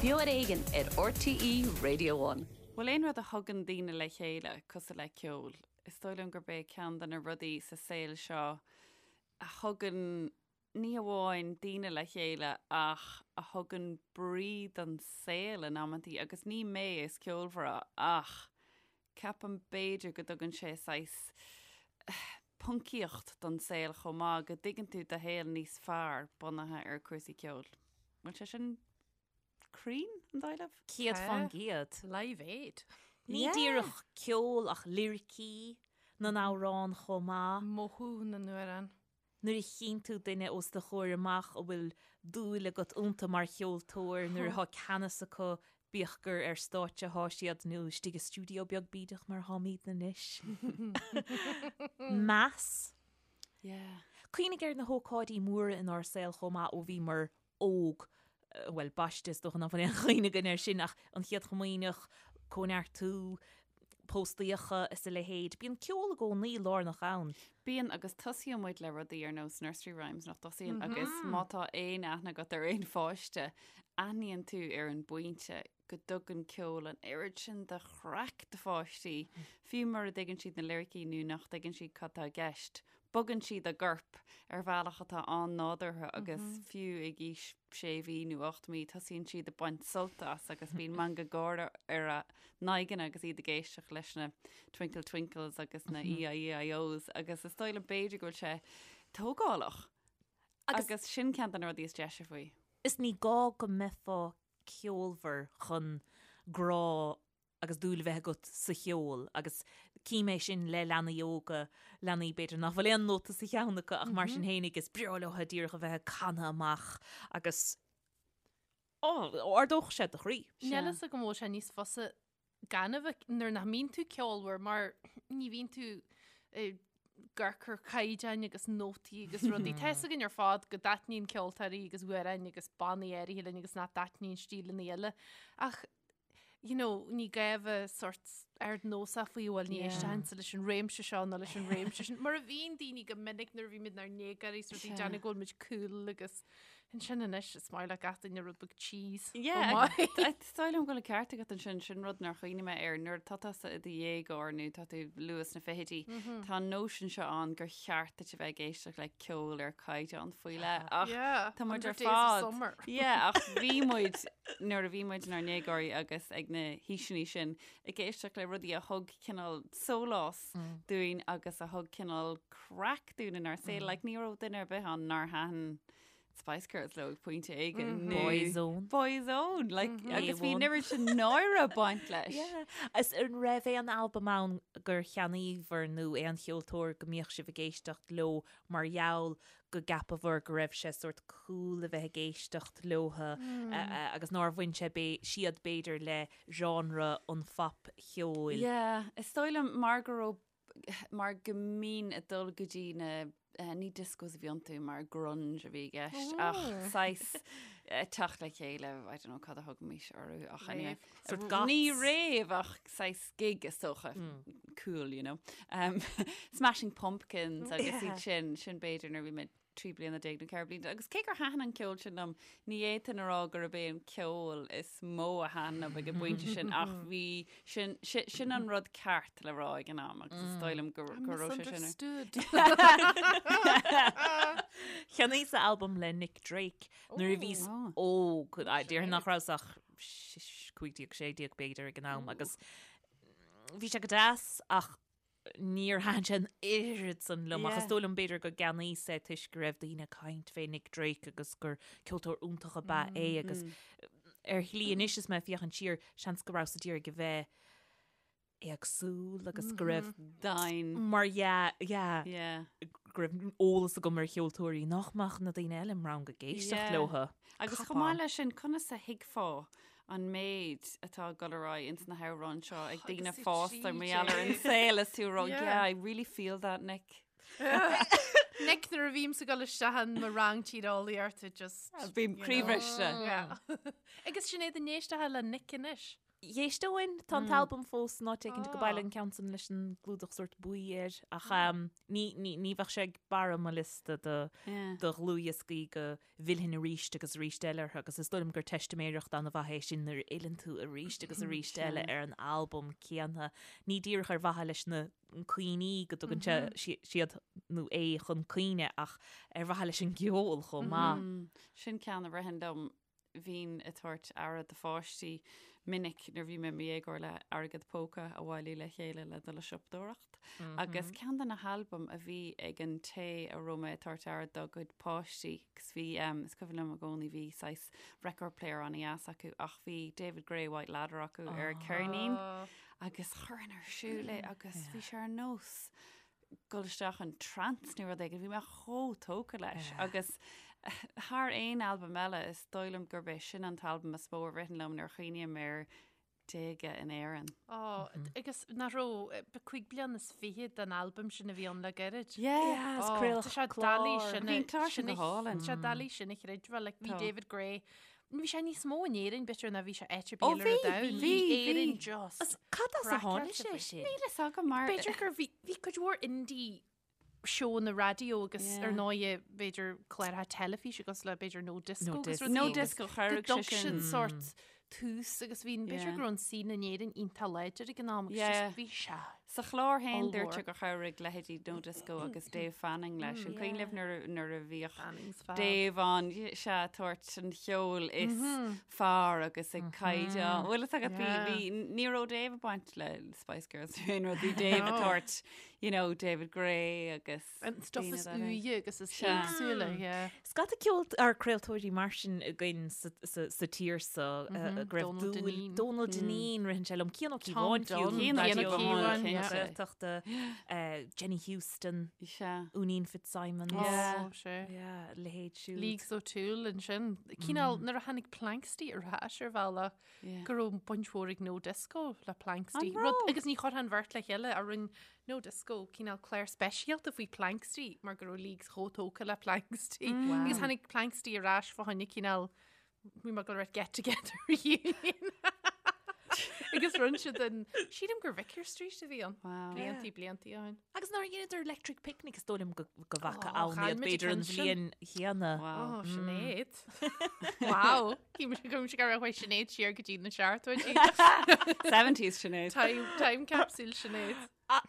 Beo ar Éigean ar RTÉ Radio One. Bhfuil aon rud a thugann daoine le chéile cosúil le ceol? Is dóigh liom gurb é ceann de na rudaí sa saol seo a thugann ní hamháin daoine le chéile ach a thugann brí don saol in amantaí agus ní mé is ceolmhaire ach ceapaim b'fhéidir go dtugann sé saghas poncaíocht don saol chomh maith, go dtuigeann tú do shaol níos fearr bunaithe ar cúrsaí ceoil. Bhfuil sé sin cruinn, an dóigh libh? 100%. Live Aid. Ní díreach ceol ach liricí na n-amhrán chomh maith. Mothú na n-amhrán. Nuair a chíonn tú duine os do chomhair amach a bhfuil dúil agat iontu mar cheoltóir, nuair atá ceannas acu, bíodh gur ar stáitse atá siad nó istigh i stiúideo beag bídeach mar atáimidne anois. Meas. Yeah. Cuimhnigh ar na hócáidí móra inár saol chomh maith ó bhíomar óg, bhuel, baiste is dócha nach bhfuil aon chuimhne againn air sin ach an Chéad Chomaoineach, Cóineartú, póstaíocha is a leithéid. Bíonn ceol i gcónaí lárnach ann. Bíonn, agus tosaíonn muid le rudaí ar nós nursery rhymes, nach dtosaíonn? Agus má tá aon aithne agat ar aon pháiste, aithníonn tú ar an bpointe go dtugann ceol an oiread sin de chraic do pháistí, fiú mura dtuigeann siad na liricí nó nach dtuigeann siad cad tá i gceist. Bogann siad a gcorp ar bhealach atá an-nádúrtha agus fiú ag aois sé mhí nó 8 mí tosaíonn siad ag baint sult as agus bíonn meangadh gáire ar a n-aghaidheanna agus iad ag éisteacht leis na Twinkle Twinkles agus na E-I-E-I-Os agus is dóigh liom b'fhéidir go bhfuil sé tógálach agus sin ceann de na rudaí is deise faoi. Is ní gá go mbeifeá ceolmhar chun grá agus dúil a bheith agat sa cheol agus cím é sin le leanaí óga, leanaí b'fhéidir nach bhfuil aon nóta sa cheann acu ach mar sin fhéinig is breá leo díreach a bheith ag canadh amach agus á, ardódh sé do chroí. Níl a fhios agam an bhfuil sé níos fusa gan a bheith, nuair nach mbíonn tú ceolmhar mar ní bhíonn tú ag amharc ar chaighdeáin agus nótaí agus rudaí. Tá fhios againn ar fad go dtaitníonn ceoltóirí agus amhráin agus bannaí áirithe linn agus nach dtaitníonn stíleanna eile. Ach you know, ní gá a bheith sort ardnósach faoi bhuel ní éistfinnse leis an réimse seo nó leis an réimse sin. Mar a bhíonn daoine go minic nuair a bhí muid inár ndéagóirí sort ag déanamh go bhfuil muid cool agus ansin anois is maith le gach duine rud beag cheese. Yeah, is dóigh liom go bhfuil an ceart agat ansin, sin rud nár chuimhnigh mé air nuair atá tusa i do dhéagóir nó tá tú luath sna fichidí, tá an nóisean seo ann gur cheart duit a bheith ag éisteacht le ceol ar caighdeán faoi leith ach tá muid ar fad. Yeah, ach bhí muid nuair a bhí muid inár ndéagóirí agus ag na haoiseanna sin ag éisteacht le rudaí a thug cineál sólás dúinn agus a thug cineál craic dúinn inár saol. Like, ní raibh duine ar bith ann nár thaitin Spice Girls leo ag pointe éigin. nó- Boyzone. Boyzone, like, agus bhí an oiread sin náire ag baint leis. Yeah. Is an raibh aon albam ann gur cheannaíobhair nó aon cheoltóir go mbíodh sibh ag éisteacht leo mar gheall go gceapabhair go raibh sé sórt cool a bheith ag éisteacht leotha agus nár bhain sé siad b'fhéidir le genre an phopcheoil. Yeah, is dóigh liom mar go raibh, mar go mbínn ag dul go dtí na, ní discos a bhí iontu mar grunge a bhí i gceist ach saghas teacht le chéile, I don't know cad a thugaimis orthu ach anyway. Sort goths. Ní rave ach saghas gig is dócha. Cool, you know. Um, Smashing Pumpkins agus iad sin, sin b'fhéidir nuair a bhí mé 13 bliana nó 14 bliana. Agus cé gur thaitin an ceol sin liom, ní fhéadfainn a rá gurb é an ceol is mó a thaitin liom ag an bpointe sin ach bhí sin, sin, sin an rud ceart le rá ag an am agus is dóigh liom go, go raibh sé sin. Misunderstood. Cheannaíos-sa albam le Nick Drake nuair a bhíos óg, déarfainn nach rabhas ach 15, 16 b'fhéidir ag an am agus bhí sé go deas ach níor thaitin sé an oiread san liom ach is dóigh liom b'fhéidir go gceannaíos é toisc go raibh daoine ag caint fé Nick Drake agus gur ceoltóir iontach ab ea é agus ar shlí anois is mé ag féachaint siar seans go rabhas d'iarraidh a bheith éagsúil agus go raibh Dain. mar yeah, yeah, Yeah. go raibh eolas agam ar cheoltóirí nach mbeadh na daoine eile im rang ag éisteacht Yeah. leotha. Agus chomh maith leis sin, conas a thuigfeá an méid atá ag dul ar aghaidh ins na hamhráin seo ag daoine Agus fásta mar gheall ar an saol is tú ag rá, Yeah. yeah, I really feel that, Nick. Nick nuair a bhímse ag dul isteach in mo rang tíreolaíochta just Bím you know. croíbhriste. Yeah. Agus Sinéad an éisteá le Nick anois. Dh'éisteoinn, tá an t-albam fós in áit éicint go baile an ceann san leis an gclúdach sórt buí air ach ní, ní, ní bheadh sé ag barra mo liosta do, do dhlúthdhioscaí go bhfillfinn arís agus arís eile orthu agus is dóigh liom gur teistiméireacht an-mhaith é sin nuair a fhilleann tú arís agus arís eile ar an albam céanna. Ní díreach ar mhaithe leis na cuimhní go dtugann sé siad nó é chun cuimhne ach ar mhaithe leis an gceol chomh maith. Sin ceann a ritheann liom Bhínn ag tabhairt aire do pháistí minic nuair bhí mé i mo dhéagóir le airgead póca a bhailiú le chéile le dul ag siopadóireacht. Agus ceann de na halbaim a bhí ag an té a raibh mé ag tabhairt aire dá gcuid páistí, agus bhí, is cuimhin liom i gcónaí, bhí saghas record player an-dheas acu ach bhí David Gray White Ladder acu ar ceirnín agus chuirfinn ar siúl é agus bhí sé ar nós dul isteach in trance nó rud éigin, bhí mé chomh tógtha leis agus thar aon albam eile is dóigh liom gurb é sin an t-albam is mó a ritheann liom nuair a chuimhním ar déaga in Éirinn. Ó, agus nach raibh 25 bliain den albam sin a bhí ann le gairid. Yeah, is craoladh Tá sé clár. doiligh sin Bhí an clár sin go hálainn. Tá sé doiligh sin a chreidbheáil, like, bhí Tá. David Gray Bhí sé níos mó in Éirinn b'fhéidir ná bhí sé áit ar Ó, bith eile ar bhí, an domhan. bhí, Bhí Éirinn bhí. just As cad as a tháinig craiceáilte sé faoi. sin? Níl fhios agam mar B'fhéidir gur bhí bhí cuid mhór indie seónna raidió agus Yeah. ar ndóighe b'fhéidir cláracha teilifíse agus le b'fhéidir No Disco No agus Disco. rudaí No agus Disco go chabhraigh dtug sé sin. sin sórt tús agus bhí b'fhéidir Yeah. go raibh an scene in Éirinn iontach láidir ag an am agus Yeah. just bhí sé. Sa chlár féin dúirt Ollmhór. sé gur chabhraigh leithéidí No Disco agus Dave Fanning leis. An cuimhin libh nuair a- nuair a bhíodh Fanning's fab. Dave ann sea ag tabhairt an cheoil is fearr agus ag caighdeán. Bhfuil fhios agat bhí Yeah. bhí ní raibh Dave ag baint le Spice Girls nó aon rud bhí Dave ag No. tabhairt you know, David Gray agus An stuff daoine is dá leithéid. úire agus is Sea. éagsúla, yeah. Scata ceol ar craoltóirí mar sin againn sa, sa, sa tír so mm -hmm. go raibh Donal dúil Dineen. Donal Dineen ritheann sé liom Cian Ó Tom Cíobháin fiú, Dunne, Raidió Cian Ó Cíobháin, na yeah. Gaeltachta, eh, Jenny Houston, Sea. Úinín Fitzsimons. Yeah. Oh, sé. Yeah, leithéid siúd. Leagues O'Toole ansin. Cineál nuair a tháinig Planxty ar ais ar bhealach Yeah. go raibh baint mhór ag No Disco le Planxty. An Rud raibh? agus ní chuirfeá an bheirt le chéile a rinne No Disco cineál clár speisialta faoi Planxty mar go raibh Leagues chomh tógtha le Planxty. Agus tháinig Planxty ar ais fá choinne cineál bhí mé ag dul a rá get together reunion. Agus rinne siad an sílim gur Vicar Street a bhí ann. Wow. Bliantaí bliantaí ó shin. Agus nuair a dheineadar Electric Picnic is dóigh liom go go bhfaca Oh, ann chaill iad muid b'fhéidir an an ceann sin. bhliain chéanna. Wow. Oh, Sinéad. Wow. Cím go raibh Sinéad siar go dtí na seachtóidí. 70s Sinéad. Time, time capsule Sinéad.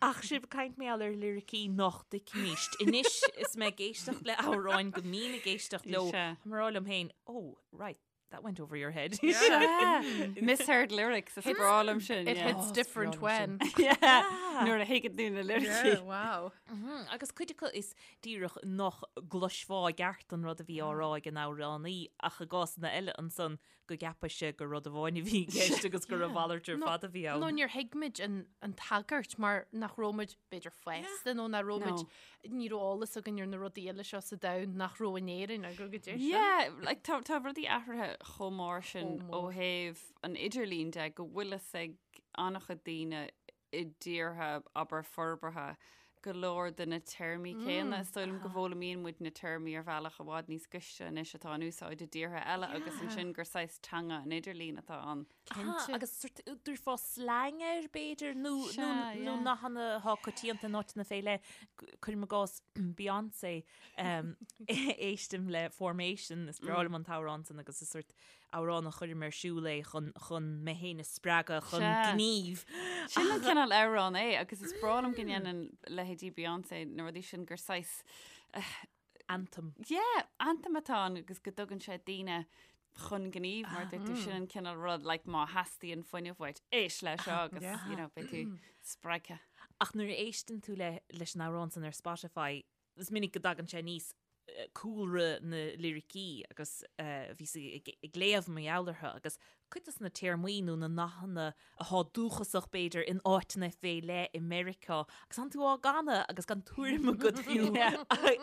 Ach sibh ag caint mar gheall ar liricí nach dtuigimíst. Anois is mé ag éisteacht le amhráin go mbím ag éisteacht leo, Sea. tá mé ag rá liom féin, oh, right, that went over your head. Sea. Misheard lyrics is breá liom sin. It yeah. hits different breá liom when. Yeah. Nuair a thuigeann tú na liricí. Yeah, wow. Mhm, Agus cuid acu is díreach nach gcloisfeá i gceart an rud a bhí á rá ag an amhránaí ach i gcásanna eile ansan go gceapfainnse gur rud amháin a bhí i gceist agus gur a mhalairt ar fad a bhí ann. Nó níor thuig muid an, an tagairt mar nach raibh muid b'fhéidir fásta nó nach raibh muid ní raibh eolas againn ar na rudaí eile seo sa domhan nach raibh in Éirinn agus go dtí sin. Yeah, like, tá, tá rudaí athraithe chomh mór sin Chomh ó mór. thaobh an idirlín de go bhfuil fhios ag an-chuid daoine i dtíortha, abair, forbartha, go leor de na téarmaí céanna. Is dóigh liom go bhfoghlaimíonn muid na téarmaí ar bhealach i bhfad níos gaiste anois atá in úsáid i dtíortha eile agus ansin gur saghas teanga an idirlín atá ann. Cinnte. Agus sort dtabharfá slang air b'fhéidir nó Sea, nó nó yeah. nathanna atá coitianta in áiteanna fé leith. Cuirim i gcás Beyoncé um, éistim le Formation, is breá liom an t-amhrán san agus is sort amhrán a chuirim ar siúl é chun chun mé féin a spreagadh chun Sea. gnímh. Sin an cineál amhrán é agus is breá liom go ndéanann leithéidí Beyoncé na rudaí sin gur saghas Anthem. Yeah, anthem atá ann agus go dtugann sé daoine chun gnímh mar dúirt tú sin an cineál rud like má theastaíonn fuinneamh uait éist leis seo agus Yeah. you know, beidh tú spreagtha. Ach nuair a éisteann tú le leis an amhrán san ar Spotify, is minic go dtagann sé aníos cúlra na liricí agus bhíos ag léamh mar gheall orthu agus cuid de na téarmaí nó na nathanna atá dúchasach b'fhéidir in áiteanna fé leith i Meiriceá agus tánn tú á gcanadh agus gan tuairim agat fiú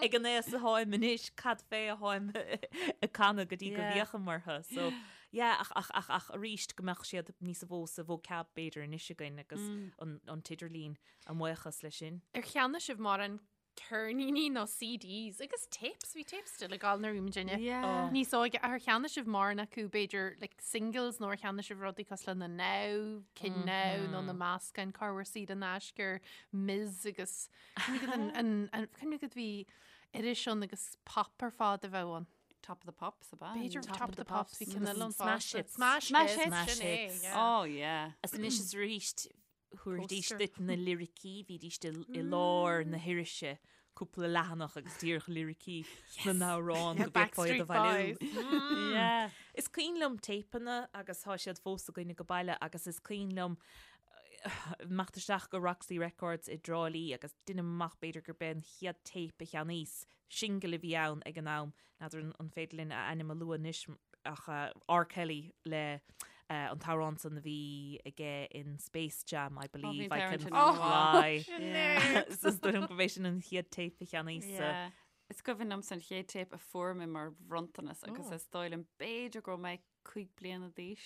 ag an aos atáim anois cad fé atáim ag canadh go dtí go bhféachaim orthu. So yeah ach ach ach ach arís go mbeadh siad níos mó sa vocab b'fhéidir anois againn agus an an t-idirlíon a mbuíochas leis sin. Ar cheannaigh sibh mórán? ceirníní nó CDs agus tapes, bhí tapes still ag gabháil nuair a bhí muidinne Yeah. níos óige. Ar cheannaigh sibh mórán acu b'fhéidir like singles nó ar cheannaigh sibh rudaí cosúil le na Now, Cinn Now nó na meascáin cá bhfuair saor in aisce ar Ms agus cuimhnigh an- an- an- cuimhnigh go bhí iris ann agus pop ar fad a bheadh ann. Top of the Pops ab ea? B'fhéidir Top Top of of the the Pops bhí Pops. ceann eile ann Smash fosta. Hits. Smash Smash Hits, Hits. sin é, Smash Hits. yeah. Oh yeah. Is anois is arís thabharfaidís Poster. duit na liricí, bhídís i lár na hirise cúpla leathanach agus díreach liricí na n-amhrán go bhféadfá iad a Backstreet bhailiú. Boys. Yeah. Is cuimhin liom téipeanna agus tá siad fós againne go baile agus is cuimhin liom imeacht isteach go Roxy Records i dTrá Lí agus deinim amach b'fhéidir gurb é an chéad téip a cheannaíos, singil a bhí ann ag an am, n'fheadar an féidir linn a ainm a lua anois ach R. Kelly le an t-amhrán san a bhí aige in Space Jam, I believe I can fly. So is dóigh liom gurb é sin an chéad téip a cheannaíos. Is cuimhin liomsa an chéad téip a fuair mé mar bhronntanas agus is dóigh liom b'fhéidir go raibh mé 5 bliana d'aois,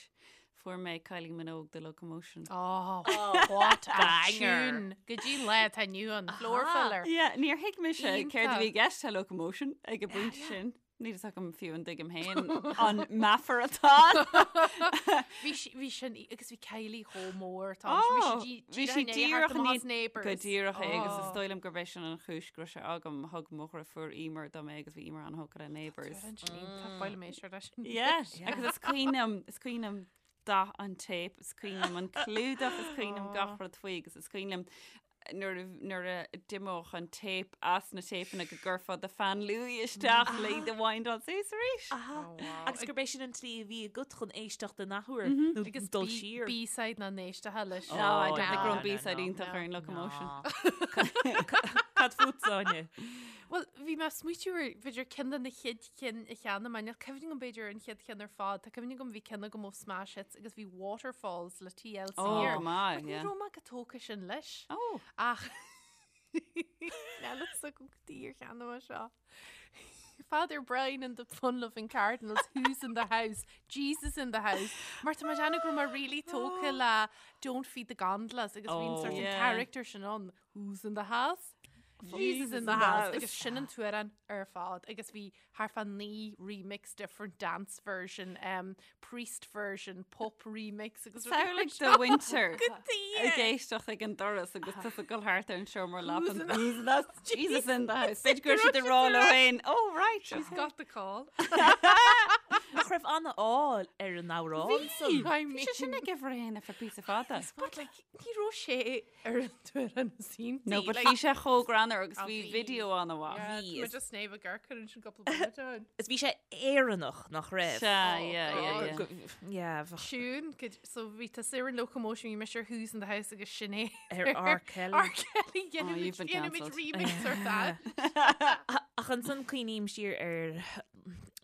fuair mé Kylie Minogue The Locomotion. Oh, what a tune! Go dtí an lá atá inniu ann, floor filler. Yeah, níor thuig mise céard a bhí i Iontach. gceist le Locomotion ag an bpointe sin. Níl fhios agam fiú an dtuigim féin an meafar atá ann. Bhí sí- bhí sin agus bhí Kylie chomh mór tá. Bhí Oh, sí bhí sí díreach díreach in ní- Neighbours. Go díreach é agus is Oh. dóigh liom gurb é sin an chúis go raibh sé agam. Thug mo dheirfiúr Emer dom é agus bhí Emer an-thógtha le Neighbours. Baile mé sure leis. Yeah, agus is cuimhin liom, is cuimhin liom dath an téip, is cuimhin liom an clúdach, is cuimhin liom gach rud faoi agus is cuimhin liom nuair a nuair a d'imeodh an téip as na téipeanna go gcuirfeá do pheann luaidhe isteach le iad a windáil suas arís. Agus gurb é sin an tslí a bhí agat chun éisteacht in athuair nó Agus dul siar. B-side na n-éisteacha leis. No, I don't think no, go raibh no, B-side no, iontach ar an Locomotion. Cad fút, Áine? Bhuel, bhí mé ag smaoitiú ar b'fhéidir ceann de na chéad chinn a cheannaigh mé. Níl cuimhne agam b'fhéidir ar an chéad cheann ar fad. Tá cuimhne agam bhí ceann agam ó Smash Hits agus bhí Waterfalls le TLC Ó, air. go maith, But ní yeah. raibh mé chomh tógtha sin leis. Ó. Ach níl fhios agam cad chuige ar cheannaigh mé seo. Father Brown and the Fun-Loving Cardinals, Who's in the House, Jesus in the House. Mar tá mé ag déanamh go raibh mé really tógtha le Don't Feed the Gondolas agus bhí an Oh. sort of Yeah. character sin ann, Who's in the House? Jesus in the house. Agus sin an t-amhrán ar fad agus bhí thart fá 9 remix different dance version, um, priest version, pop remix agus rudaí mar Samhlaigh seo. do mhuintir Go ag éisteacht ag an doras agus tusa ag dul thart ar an seomra Who's leapan. in the- Who's in the house? Jesus in the house. B'fhéidir go raibh siad ag rá leo féin, Oh right, She's got the call. Nach raibh an-ádh ar an amhrán san? I Bhí sé sin mean, ag uimhir a haon ar feadh píosa fada. but like, ní raibh sé ar an t-amhrán is iontaí. No, but like, bhí sé chomh greannmhar agus Ah, bhí bhí. video an-mhaith. Yeah, Bhí, tá is- just snéamh a garcar an sin cúpla bliain ann. Is bhí sé Éireannach nach raibh. Sea, Oh, yeah, yeah, God. yeah. Go- Yeah, bheadh Siún, could- so bhí tusa ar an Locomotion, bhí mise ar Who's in the House agus sin é. ar R. Kelly. R. Kelly, Oh, you've been dhéanfaimid cancelled. remix ar that. Ach ansan cuimhním siar ar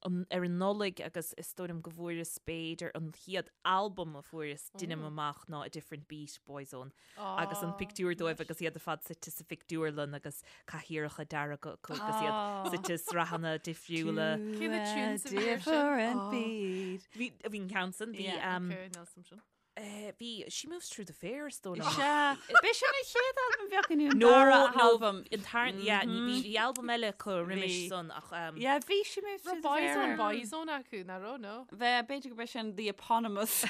an ar an Nollaig agus is dóigh liom go bhfuaireas b'fhéidir an chéad albam a fuaireas deinim amach ná A Different Beat, Boyzone. Agus an pictiúr dóibh agus iad ar fad suite sa phictiúrlann agus cathaoireacha dearga acu agus iad suite i sraitheanna difriúla. Cé na tunes a bhí air sin? Different Oh. beat. Bhí bhí an ceann san, bhí Yeah. um, Okay, níl fhios a'm sin. eh, bhí She Moves Through the Fair is dóigh liom. Sea, b'é sin an chéad albam bheadh inniu an No, dara no, albam. an tar yeah, ní bhí bhí albam eile acu roimis Bhí. san ach um, Yeah, bhí She Moves Through Raibh the Boyzone Fair. Boyzone acu, nach raibh, no? Bheith, b'fhéidir go b'é sin the eponymous.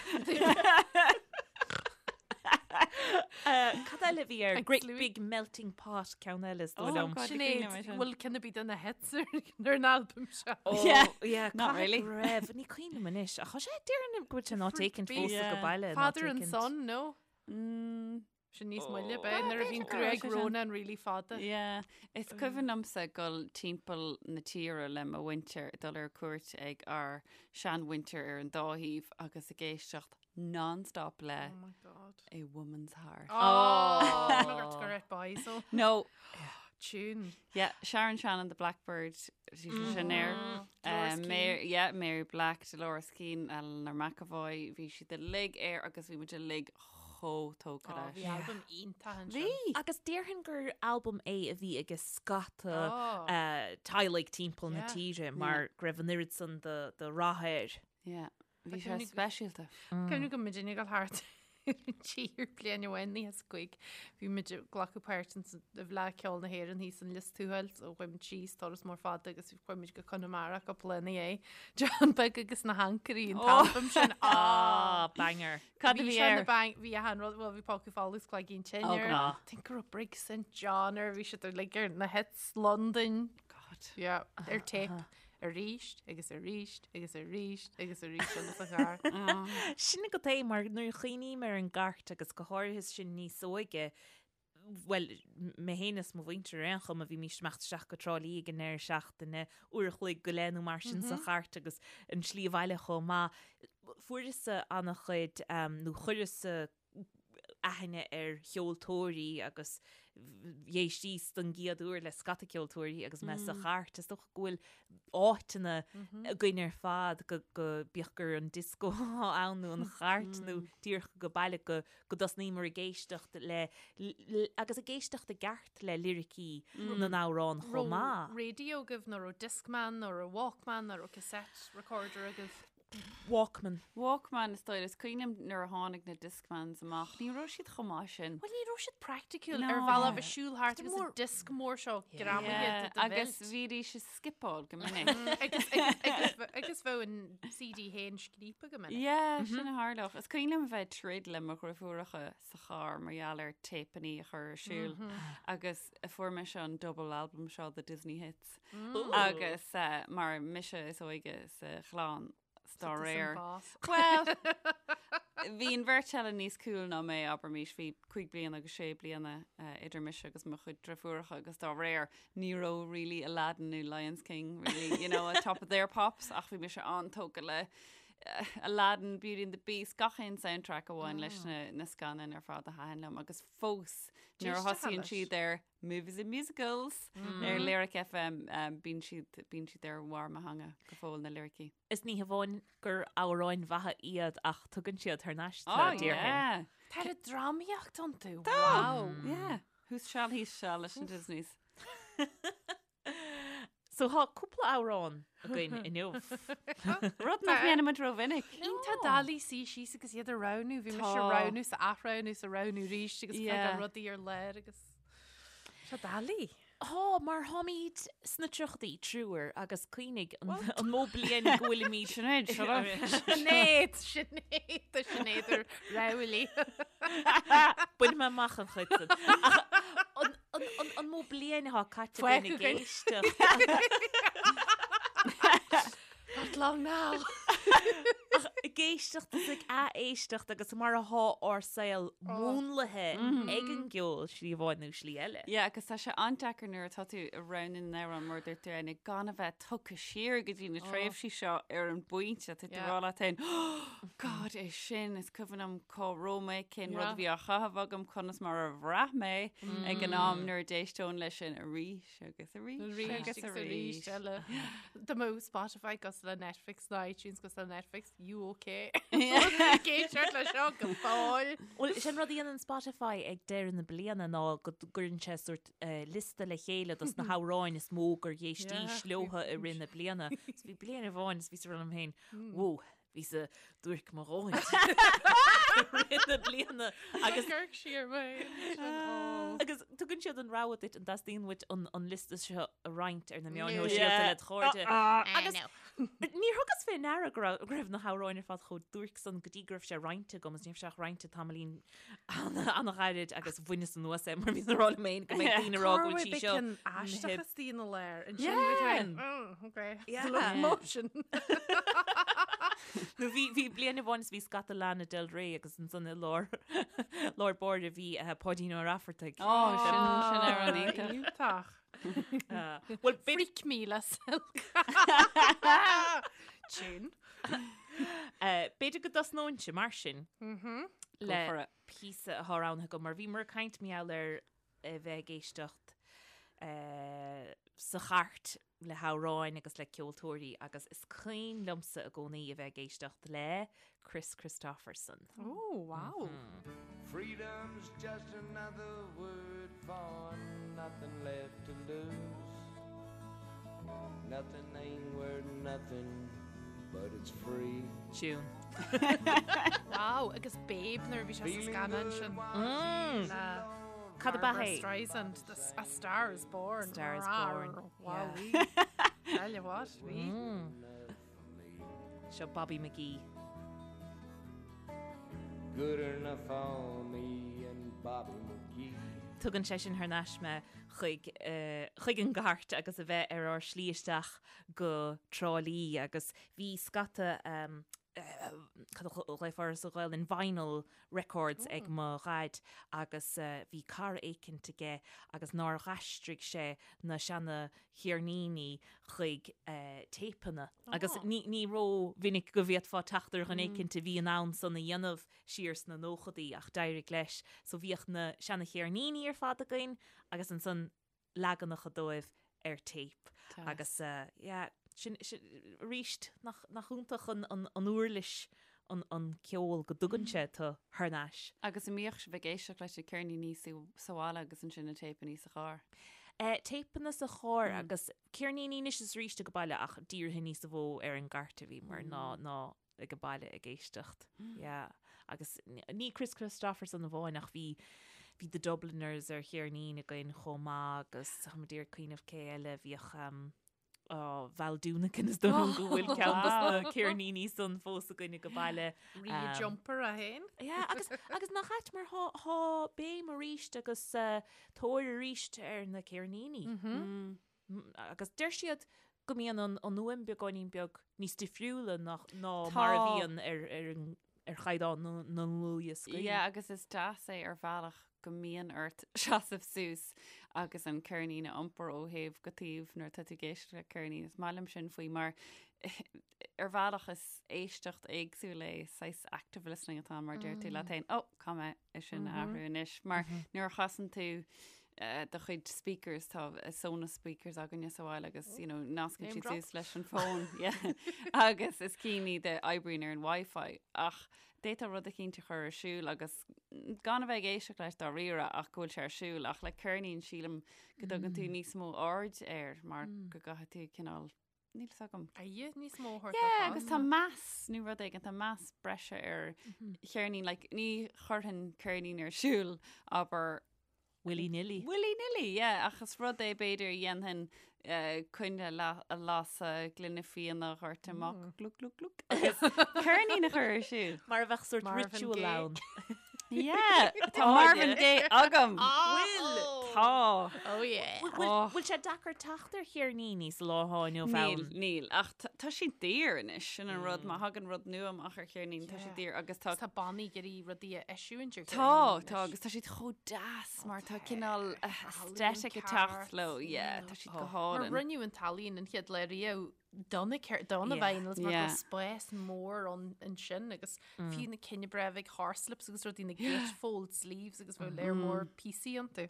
Cad eile bhí ar Thanks, Great Louis. Big Melting Pot ceann eile is dóigh Oh, liom. God. Sinéad, cuimhin liom é sin. bhfuil ceann ar bith de na hits ar ar an albam seo. Oh, Yeah. yeah, Not caithfidh really. go raibh. Ní cuimhin liom anois. Ach tá sé déarfainn go bhfuil sé not taken Beat. fós Yeah. go baile. not Father and taken. Son, no? Mm, Sin níos moille Oh. b'é nuair a bhíonn b'fhéidir go raibh gruaig sé sin. Ronan really fada. Yeah, is cuimhin liomsa dul timpeall na tíre le mo mhuintir, dul ar cuairt ag ár seanmhuintir ar an dá thaobh agus ag éisteacht non-stop le Oh my God. A Woman's Heart. Oh, oh. go raibh Boyzone. No, Tune. yeah, Sharon Shannon, the Blackbird, bhí sin air. Dolores Um, Keane. Mary, yeah, Mary Black, Dolores Keane, Eleanor McEvoy, bhí siad uilig air agus bhí muid uilig chomh tógtha Oh, leis. bhí albam iontach ansin. Bhí! Agus déarfainn gur albam é a bhí ag scata Oh. teaghlaigh timpeall na Yeah. tíre mar go raibh an oiread san de rath air. Yeah, bhí Tá sé cuimhne- speisialta. Cuimhne go muidinne ag dul thart. an tír bliain amháin 95 bhí muid ag glacadh páirt in i bhFleadh Ceoil na hÉireann thíos in Lios Tuathail so chuaigh muid síos turas mór fada agus chuaigh muid go Conamara cúpla lá ina dhiaidh. John Beag agus na hAncairí an t-albam sin. Ah, banger. Cad a bhí air? Bhí achan rud, bhuel bhí Pócaí Folamh agus Cloigín Tinn Oh, air. God. I think go raibh Brig St John air, bhí siad uilig ar na hits Londain. God. Yeah, ar tape. Arís agus arís agus arís agus arís eile sa charr. Sin agat é mar nuair a chuimhním ar an gcairt agus go háirithe sinn níos óige, bhuel, mé féin is mo mhuintir ar aon chuma, bhímís ag imeacht isteach go Trá Lí ag an ndeireadh seachtaine, uair a chloig go leith nó mar sin sa chairt agus an slí abhaile chomh maith. Fuaireas-sa an-chuid, nó chuireas-sa aithne ar cheoltóirí agus d'éistíos don gcéad uair le scata ceoltóirí agus mé sa chairt. Is dócha go bhfuil áiteanna againn ar fad go bíodh gur an disco atá ann nó an chairt nó díreach go baile go go dtosnaíomar ag éisteacht le agus ag éisteacht i gceart le liricí na n-amhrán chomh maith. Raibh radio agaibh nó raibh Discman nó raibh Walkman nó raibh cassette recorder agaibh? Walkman. Walkman is dóigh. Is cuimhin liom nuair a tháinig na Discmans amach, ní raibh siad chomh maith sin. Bhuel ní raibh siad praiticiúil No. ar bhealach bheith siúl thart agus mór- an disc mór seo greamaithe Yeah, de do agus bheilt. bhídís ag skipeáil go minic. Agus, agus, agus, agus bheadh an CD féin scríobtha go minic. Yeah, sin a tharlódh. Is cuimhin liom bheith ag troid le mo dhriofúracha sa charr mar gheall ar téipeanna a chur ar siúl agus fuair mise an double album seo the Disney Hits. Agus mar mise is óige sa chlann dá réir. Well, bhí an bheirt eile níos cool ná mé, abraimis, bhí 5 bliana agus 6 bliana idir mise agus mo chuid driofúracha agus dá réir ní raibh really Aladdin nó Lions King really, you know, at top of their pops ach bhí mise an-tógtha le Aladdin, Beauty and the Beast, gach aon soundtrack a bhain leis na, na scannáin ar fad a thaitin liom agus fós nuair a thosaíonn siad ar Movies and Musicals ar Lyric FM bíonn siad, bíonn siad ar bharr mo theanga go fóill na liricí. Is ní hamháin gur amhráin mhaithe iad ach tugann siad thar n-ais Oh, tú, déarfainn. yeah. Tá an drámaíocht iontu, Tá! wow! Yeah. Whose shall he shall leis an Disneys. So tá cúpla amhrán againn inniu. Rud nach ndéanaimid rómhinic. Iontach doiligh suí síos agus iad a roghnú, bhí mise ag roghnú is ag athroghnú is ag roghnú arís agus fágáil rudaí ar lár agus tá sé doiligh. Tá, mar táimid sna tríochaidí, triúr, agus cuimhnigh an mó bliain go bhfuilimid. Sinéad, shut up. Sinéad, Sinéad, tá Sinéad ar ráillí. Bainfidh mé amach an chuid sin. Ach an An mó bliain atá caite againn ag éisteacht? Not long now. Ach ag éisteacht is ag ath-éisteacht agus mar atá ár saol múnlaithe ag an gceol slí amháin nó slí eile. Yeah, agus tá sé an-deacair nuair atá tú ag roghnú na n-amhrán mar a dúirt tú Áine, gan a bheith tugtha siar go dtí na tréimhsí seo ar an bpointe tá tú ag rá leat féin, God, é sin, is cuimhin liom cá raibh mé, cén rud a bhí á chaitheamh agam, conas mar a bhraith mé ag an am nuair a d'éisteoinn leis sin arís agus arís Arís agus arís eile. Dá mbeadh Spotify cosúil le Netflix nó iTunes cosúil le Netflix, you okay? Ag éisteacht leis seo go fóill. Bhuel, sin rud a dhéanann Spotify ag deireadh na bliana ná go gcuireann sé sórt liosta le chéile dos na hamhráin is mó gur éistís leotha i rith na bliana. So bhí bliain amháin is bhíos ag rá liom féin, whoa, bhíos-sa duairc mo dhóthain i rith na bliana agus Amharc siar mé. Agus tugann siad an rogha duit an dteastaíonn uait an an liosta seo a roinnt ar na meáin shóisialta le do chairde. Agus níor thugas fé ndeara go raibh go raibh na hamhráin ar fad chomh duairc san go dtí go raibh sé roinnte agam agus ní raibh sé ach roinnte tamaillín an-ghairid agus bhaineas anuas é mar bhíos ag rá liom féin go mbeidh daoine ag rá go bhfuil sí seo aisteach istigh ina lár ansin okay motion. Nó bhí bhí bliain amháin is bhí scata Lana Del Rey agus ansan i lár lár báire bhí Páidín Ó Raifeartaigh. Ó sin sin amhrán iontach. Iontach. Bhuel Freak me le Silk. Tune. B'fhéidir go dtosnóinnse mar sin Go le for it. píosa atá roghnaithe agam mar bhíomar ag caint mar gheall ar a bheith ag éisteacht sa chairt le hamhráin agus le ceoltóirí agus is cuimhin liomsa i gcónaí a bheith ag éisteacht le Kris Kristofferson. Oh, wow. Freedom's just another word for nothing left to lose. Nothing ain't worth nothing, but it's free. Tune. Wow, agus Babe nuair a bhí sé sa scannán sin. Cad ab ea Barbra é? Streisand, the, A Star is Born. Star is Born, Wow, yeah. Tell you what, bhí. Seo Bobby McGee. Good enough for me and Bobby McGee. Tugann sé sin thar n-ais mé chuig, chuig an gcairt agus a bheith ar ár slí isteach go Trá Lí agus bhí scata cad a ghlaofá air sa Ghaelainn, vinyl records ag mo dhaid agus bhí cara éicint aige agus nár dh'aistrigh sé na seana cheirníní chuig téipeanna agus ní ní ró-mhinic go bhféadfá teacht ar dhuine éicint a bhí in ann san a dhéanamh siar sna nóchadaí ach d'éirigh leis. So bhíodh na seana cheirníní ar fad againn agus ansan leaganacha dóibh ar téip agus yeah sin sin arís nach nach iontach an an an uirlis an an ceol go dtugann sé tú thar n-ais. Agus an mbíodh sibh ag éisteacht leis na ceirníní sa bhaile agus ansin na téipeanna sa charr? Eh, téipeanna sa charr agus ceirníní anois is arís ag baile ach dírithe níos mó ar an gcairt a bhíomar ná ná ag an baile ag éisteacht. Yeah. Agus ní Kris Kristofferson amháin ach bhí bhí The Dubliners ar cheirnín againn chomh maith agus táim ag iarraidh cuimhneamh cé eile bhíodh um, oh, Val Doonican is dóigh liom go bhfuil ceann dos na ceirníní san fós againn ag an baile. Rí um, jumper a haon. Yeah, agus, agus nach ait mar thá, thá béim arís agus uh, tóir arís ar na ceirníní. Mm -hmm. mm. Agus deir siad go mbíonn an an fhuaim beagáinín beag níos difriúla ná ná mar a bhíonn ar ar an ar chaighdeán na na ndlúthdhioscaí. Yeah, agus is deas é ar bhealach go mbíonn ort seasamh suas agus an ceirnín a iompar ó thaobh go taobh nuair atá tú ag éisteacht le ceirnín. Is maith liom sin faoi mar ar bhealach is éisteacht éagsúil é, saghas active listening atá ann mar deir tú leat féin, oh, caithfidh mé é sin a athrú anois. Mar nuair a chasann tú do chuid speakers, tá Sonos speakers againne sa bhaile agus, you know, nascann siad suas leis an bhfón, yeah. Agus is cinn iad a oibríonn ar an Wi-Fi ach d'fhéadfá rud eicínt a chur ar siúl agus gan a bheith ag éisteacht leis dáiríre ach go bhfuil sé ar siúl ach le ceirnín sílim go dtugann tú níos mó aird air mar go gcaithfidh tú cineál Níl fhios agam. Aire níos mó a thabhairt Yeah, agus tá meas nó rud éigin, tá meas breise ar cheirnín, like, ní chuirfinn ceirnín ar siúl, abair, Willy nilly. Willy nilly, yeah, ach is rud é b'fhéidir a dhéanfainn eh, coinne la- a lasadh, gloine fíona a dhoirteadh amach, glug glug glug, agus ceirnín a chur ar siúl. Mar a bheadh sórt Marvin ritual Gaye. ann. Yeah, tá Marvin Gaye agam. Bhfuil? Tá. Oh yeah. Bhfuil bhfuil sé deacair teacht ar cheirníní sa lá atá inniu Níl, ann? níl. Ach tá tá siad daor anois, sin an rud. Má thagann rud nua amach ar cheirnín, tá siad daor agus tá Tá bannaí ag iarraidh rudaí a eisiúint ar Tá, cheirníní tá, anois. agus tá siad chomh deas mar tá cineál aesthetic ag teacht leo. Yeah, tá siad go Mar hálainn. rinneadh an t-ealaín an chéad lá riamh do na do na vinyls mar go raibh spás mór ann ansin agus fiú na cinn breá bheag horslips agus rudaí na gatefold sleeves agus bheadh léar mór píosaí iontu.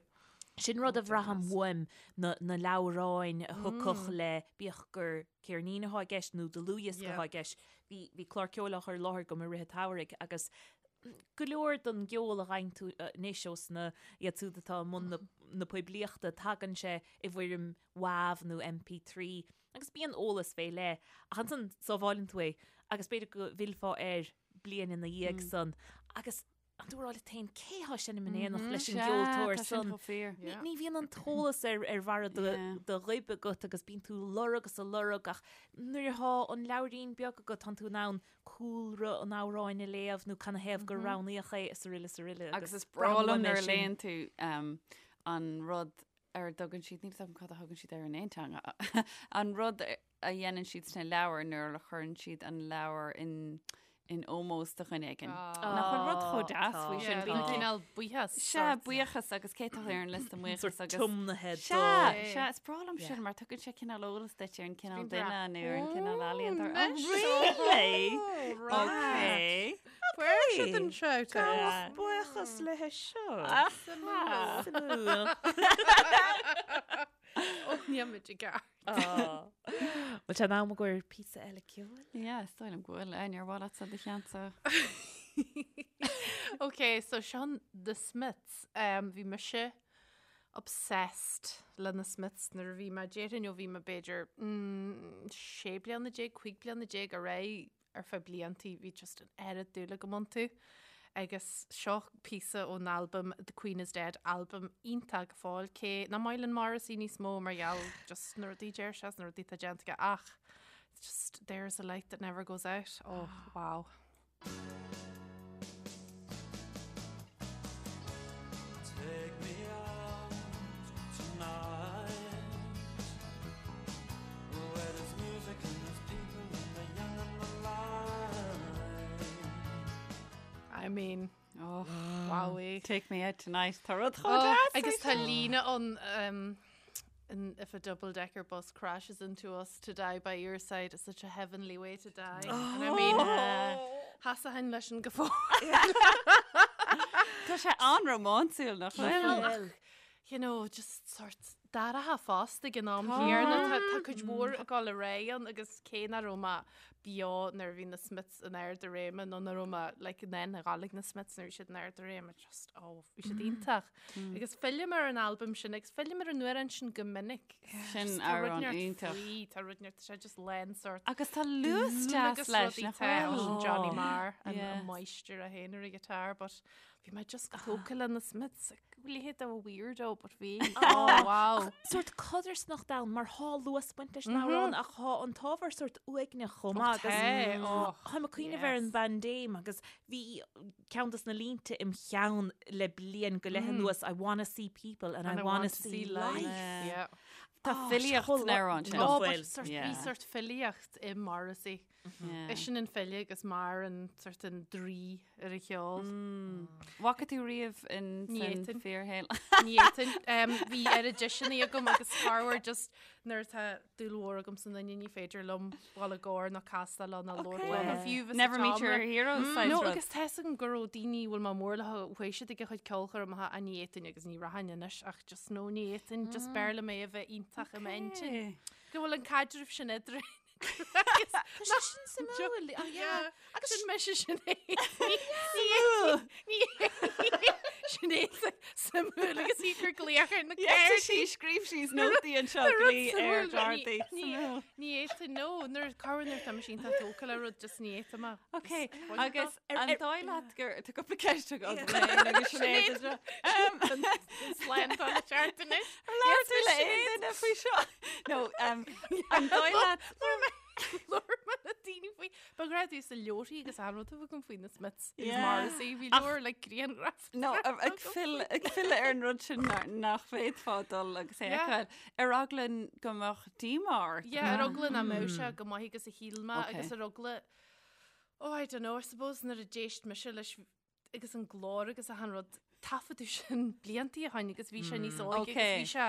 Sin rud a bhraithim uaim, na na leabhráin a thiocfadh le bíodh gur ceirnín atá i gceist nó dlúthdhiosca atá i gceist. Bhí bhí clár ceoil á chur i láthair agam i rith an tsamhraidh agus go leor den gceol a fhaigheann tú anois ós na iad siúd atá i mbun na na poiblíochta, tagann sé i bhfoirm WAV nó MP3 Agus bíonn eolas fé leith, ach ansan sábháileann tú é agus b'fhéidir go bhfillfeá air bliain ina dhiaidh san agus an tú ag rá leat féin cé thá ag seinm in éineacht leis an gceoltóir san. Ní bhíonn an t-eolas ar ar bharra do ghoib agat agus bíonn tú ag lorg is ag lorg ach nuair athá an leabhairín beag agat tánn tú in ann cúlra an amhráin a léamh nó canathaobh gur roghnaíodh é is aroile is aroile. Agus is breá liom nuair a léann tú an rud ar a dtugann siad, níl 'fhios agam cad a thugann siad air in aon teanga, an rud a dhéanann siad sna leabhair nuair a chuireann siad an leabhar in in ómós do dhuine éigin. Nach bhfuil rud chomh deas faoi sin? Bíonn cineál buíochas. Sea, buíochas agus cé atá ar an liosta buíochas agus. Tiomnaithe do. Sea, sea, is breá liom sin mar tugann sé cineál eolas duit ar an cineál duine nó ar an cineál ealaíontóir. Oh, really? Okay. Fuair siad an shout out. Buíochas le seo. Suimiúil. Ó, níl muid i gceart. Bhfuil sé in am i gcomhair píosa eile ceoil? Yeah, is dóigh liom go bhfuil. Ar mhaith leatsa do cheannsa. Ok, so seo The Smiths. Um, bhí mise obsessed le na Smiths nuair a bhí mé déarfainn ó bhí mé b'fhéidir mm, 16 bliana, 15 bliana ar aghaidh. ar feadh bliantaí, bhí just an oiread dúil agam iontu. Agus seo píosa ón albam The Queen is Dead, albam iontach go fóill, cé nach maith linn Morrissey níos mó mar gheall just na rudaí deir sé is na rudaí atá déanta aige ach just there's a light that never goes out. Oh, wow. Take me out tonight Where there's music and there's people and the young and the light I mean, Oh, wowie. Take me out tonight. Tá rud chomh Oh, deas agus faoi tá seo. líne ann um, And if a double-decker bus crashes into us to die by your side is such a heavenly way to die. And I mean, sheasfainn leis sin go fóill. Tá sé an-rómánsúil nach bhfuil? You know, just sort d'athraithe fosta ag an am chéanna. Tá tá cuid mhór ag dul ar aghaidh ann agus cé nach raibh mé beo nuair a bhí na Smiths in ard a réime nó nach raibh mé like in ann a ghabháil ag na Smiths nuair a bhí siad in ard a réime, just oh, bhí siad iontach. Agus fillim ar an albam sin agus fillim ar an amhrán sin go minic. Sin Just tá rud amhrán neart iontach. faoi, tá rud neart, tá sé just lán sort Agus tá luas deas agus leis, rudaí nach tá bhfuil? sin Johnny Marr an Yeah. an máistir é féin ar an guitar, but bhí mé just go tógtha le na Smiths. Bhí leithéid de weirdo, but bhí. Oh, wow. Sórt codarsnacht ann mar thá luas ag baint leis an amhrán ach thá an t-ábhar sórt uaigneach chomh maith agus Tá, oh, Táim ag cuimhneamh ar an yes. bpaindéim agus bhí ceann dos na línte im cheann le bliain go leith anuas, I wanna see people and I wanna see life. Yeah. Tá filíocht san amhrán sin. Oh, bhfuil. but sort, bhí Yeah. sort filíocht i Morrissey. Yeah. Eisean an file agus Marr an sort an draoi ar a cheol. Bhfaca tú riamh in Ní san fhéadfainn. fíorshaol? Ní fhéadfainn. Um, bhí oiread deiseanna agam agus corruair just nuair atá dúil mhór agam sa duine ní féidir liom dul i gcomhar nó castáil leo nó labhairt leo nó fiú bheith sa Never meet your tseomra. heroes saghas No, rud. agus tá 'fhios agam go raibh daoine a bhfuil mé mór leo chuaigh siad ag a chuid ceolchoirmeacha ach ní fhéadfainn agus ní rachainn anois ach just no ní fhéadfainn just b'fhearr liom é a bheith iontach i m'intinn. Go bhfuil an caidreamh sin eadrainn. Tá sé sin suimiúil. Ah, yeah. Agus sin mise Sinéad. Sinéad suimiúil agus í gur glaoch ar na Yeah, sí scríobh sí nótaí anseo glaoch ar Dorothy. Suimiúil. Ní fhéadfainn no nuair corruair nuair tá mé iontach tógtha le rud just ní fhéadfainn mé. Ok, agus an dóigh leat gur tá cúpla ceist agam agus Sinéad anseo. Slándáil le ceart anois. Labhair tú le aon duine faoi seo? No, um, an dóigh leat Labhair mé le daoine faoi. Ba ghrá sa leabharthaí agus an rud a bhí agam faoi na Smiths agus Yeah. Morrissey bhí leabhar le grianghraf. No, ag filleadh ar an rud sin nach bhféadfá dul agus é a Yeah. fheiceáil. Ar eagla go mbeadh díomá ort. Yeah, ar eagla nach mbeadh sé go maith agus a shíl mé Okay. agus ar eagla Oh, I don't know, I suppose nuair a d'éist mise leis agus an glór agus achan rud taifeadadh sin bliantaí ó shin agus bhí sé níos óige agus Okay. bhí sé,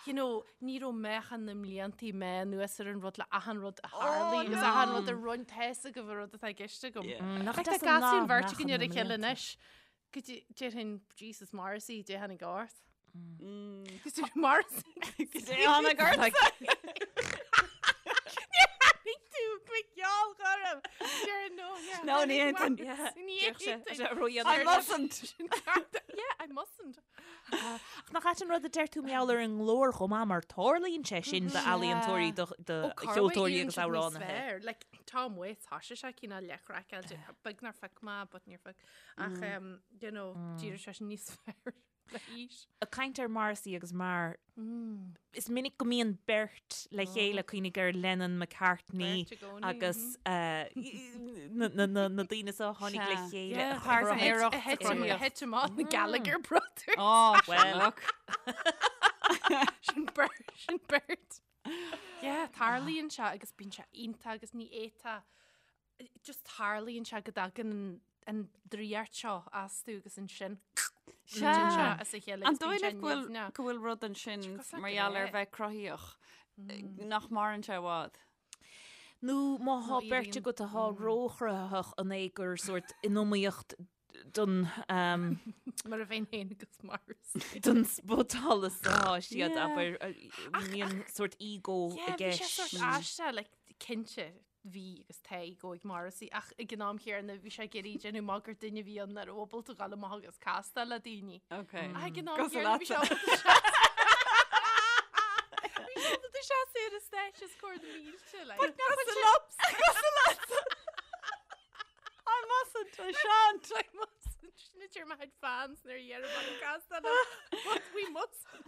you know, ní raibh meáchan na mbliantaí mé anuas ar an rud le achan rud a tharlaigh agus achan rud a rinne tá 'fhios agaibh an rud atá i gceist agam. Nach Like, tá deas an gasúr lá bheirt meáchan againn ar na a chéile mblianta. anois. Go dtí- déarfainn Jesus Morrissey, dé tháinig ort. Cos tú Morrissey. Go dté tháinig ort. Tháinig tú go geall orm. Déarfainn no, yeah. No, ní fhéadfainn. Ní Déarfadh sé- fhéadfainn. sé ró-dhéanamh. I mustn't. Yeah, I mustn't. Ach nach ait an rud a deir tú mar gheall ar an nglór chomh maith mar tarlaíonn sé sin d'ealaíontóirí, do cheoltóirí agus amhránaithe. Like, Tom Waits, thoisigh sé cineál leathchraiceáilte, beag nár phioc mé, but níor phioc. Ach, um, you know, d'éirigh sé sin níos fearr le haois. Ag caint ar Morrissey agus Marr, is minic go mbíonn beirt le chéile cuimhnigh ar Lennon McCartney Beirt i gcónaí, agus eh, na na- na- na daoine seo a tháinig le Sea. chéile. Yeah, a chruthaigh- Páirtnéireacht A thit cruthaíocht. a thit amach na Gallagher Brothers. Oh, Well. look. Sin beirt, sin beirt. Yeah, tarlaíonn sé agus bíonn sé iontach agus ní fhéadfá just tarlaíonn sé go dtagann an- an draíocht seo astu agus ansin titeann sé as a chéile An agus bíonn dóigh sé leat go bhfuil nimhneach. go bhfuil rud ansin cosúil mar le gheall ar grá. bheith cruthaíoch nach maireann sé i bhfad. Nó má thá Nó beirt éiríonn- agat atá róchruthaitheach an é gur sórt in iomaíocht don um, Mar a bheinn féin agus Morrissey. don spotsolas atá siad Yeah. abair mbíonn sórt ego i Yeah, bhí sé gceist. sórt aisteach, like, cinnte bhí agus tá ego ag Morrissey ach ag an am chéanna bhí sé ag iarraidh déanamh amach gur duine a bhí ann nach raibh ábalta dul amach agus castáil le daoine. Okay. Ach ag an am Cosúil chéanna bhí sé leatsa. ábalta seas- Bhí sé ábalta seasamh ar an stáitse os comhair na mílte, like. Cosúil leatsa. Cosúil leatsa. mustn't, I shan't. I mustn't. Sin a deir mo chuid fans nuair a dheirim an castáil But we mustn't.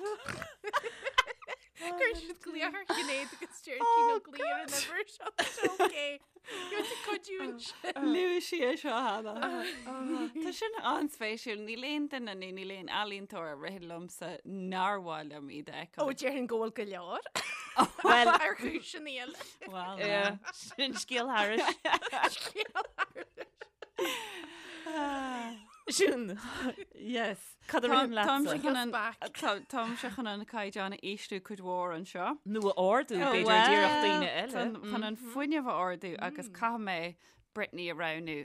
Cuireann siad glaoch ar Shinéad agus deir sí ná glaoigh ar an uimhir seo tá sé okay. Gheobhaidh tú cuidiú ansin. Luaigh sí é seo cheana. Tá sin an-spéisiúil. Níl aon duine nó níl aon ealaíontóir a ritheann liomsa nár mhaith liom iad a fheiceáil. Ó, déarfainn go bhfuil go leor. Well, ar chúiseanna eile. Well, yeah. Sin scéal thairis. Scéal thairis. Sin. Yes. Cad a ritheann leatsa? Táimse chun an caighdeán a ísliú cuid mhór anseo. Nó a ardú, b'fhéidir, d'iarracht daoine eile. Chun an fuinneamh a ardú agus caithfidh mé Britney a roghnú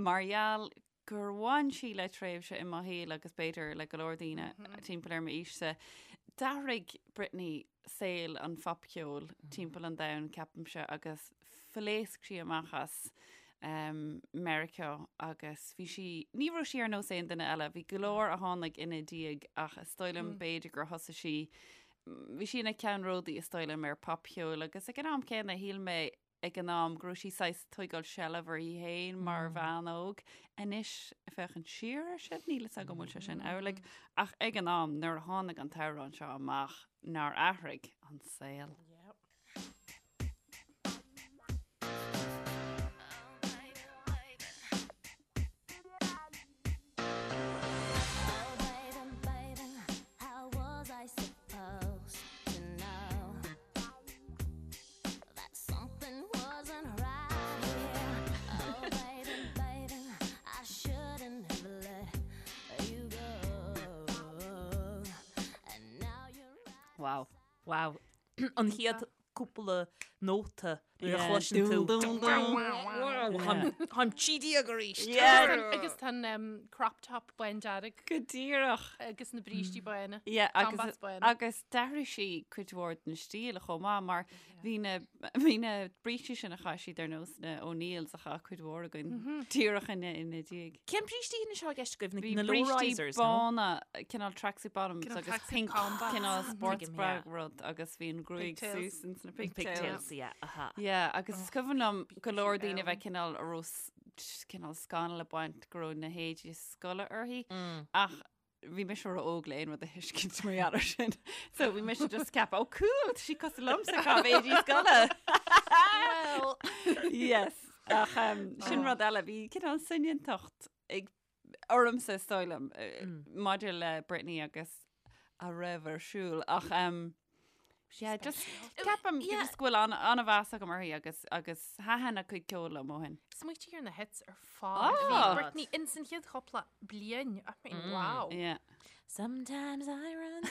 mar gheall gur bhain sí le tréimhse i mo shaol agus b'fhéidir le go leor daoine timpeall ar m'aois-sa. D'athraigh Britney saol an phopcheoil timpeall an domhain, ceapaimse, agus phléasc sí amach as Meiriceá agus bhí sí, ní raibh sí ar nós aon duine eile, bhí go leor a tháinig ina diaidh ach is dóigh liom b'fhéidir gur thosaigh sí, bhí sí ina ceannródaí is dóigh liom ar popcheol agus ag an am céanna shíl mé ag an am go raibh sí saghas tógáil seilbh uirthi féin mar bhean óg. Anois ag féachaint siar air sin, níl fhios agam an bhfuil sé sin amhlaidh ach ag an am nuair a tháinig an t-amhrán seo amach nár athraigh an saol. Wow. Wow. An chéad cúpla nóta nuair a chloiseann tú. Táim 13 arís. Agus tá an crop top bándearg. Go díreach. Agus na brístí bána. Yeah, agus, agus d'athraigh sí cuid mhór den stíl chomh maith mar bhí na, bhí na brístí sin a chaith siad ar nós na O'Neills a chaith cuid mhór againn díreach ina ina diaidh. Cén brístí sin atá i gceist agaibh? Bhí Na brístí low-risers, nó? bána, cineál tracksuit bottoms Cineál agus tracksuit pink combats. cineál sports Tuigim, bra yeah. rud agus bhí an gruaig Pigtails. suas ins na pigtails. Pigtails, yeah, aha. Yeah, agus is cuimhin liom go leor daoine ann. bheith cineál a raibh s- cineál scannal ag baint go raibh na héadaí scoile uirthi ach bhí mise ró-óg le aon rud a thuiscint mar gheall air sin. So bhí mise just ag ceapadh, oh cool, tá sí cosúil liomsa ag caitheamh éadaí scoile. Well. Yes. Ach um, sin rud eile, bhí cineál soineantacht ag ormsa is dóigh liom maidir le Britney agus a raibh ar siúl ach um, yeah, just ceapaim Yeah. just go bhfuil an- an-mheas agam uirthi agus agus thaitin a cuid ceoil liom ó shin. Smaoitigh ar na hits ar fad. Bhí Ah. Britney ins an chéad chúpla bliain. I mean, wow. Yeah. Sometimes I run.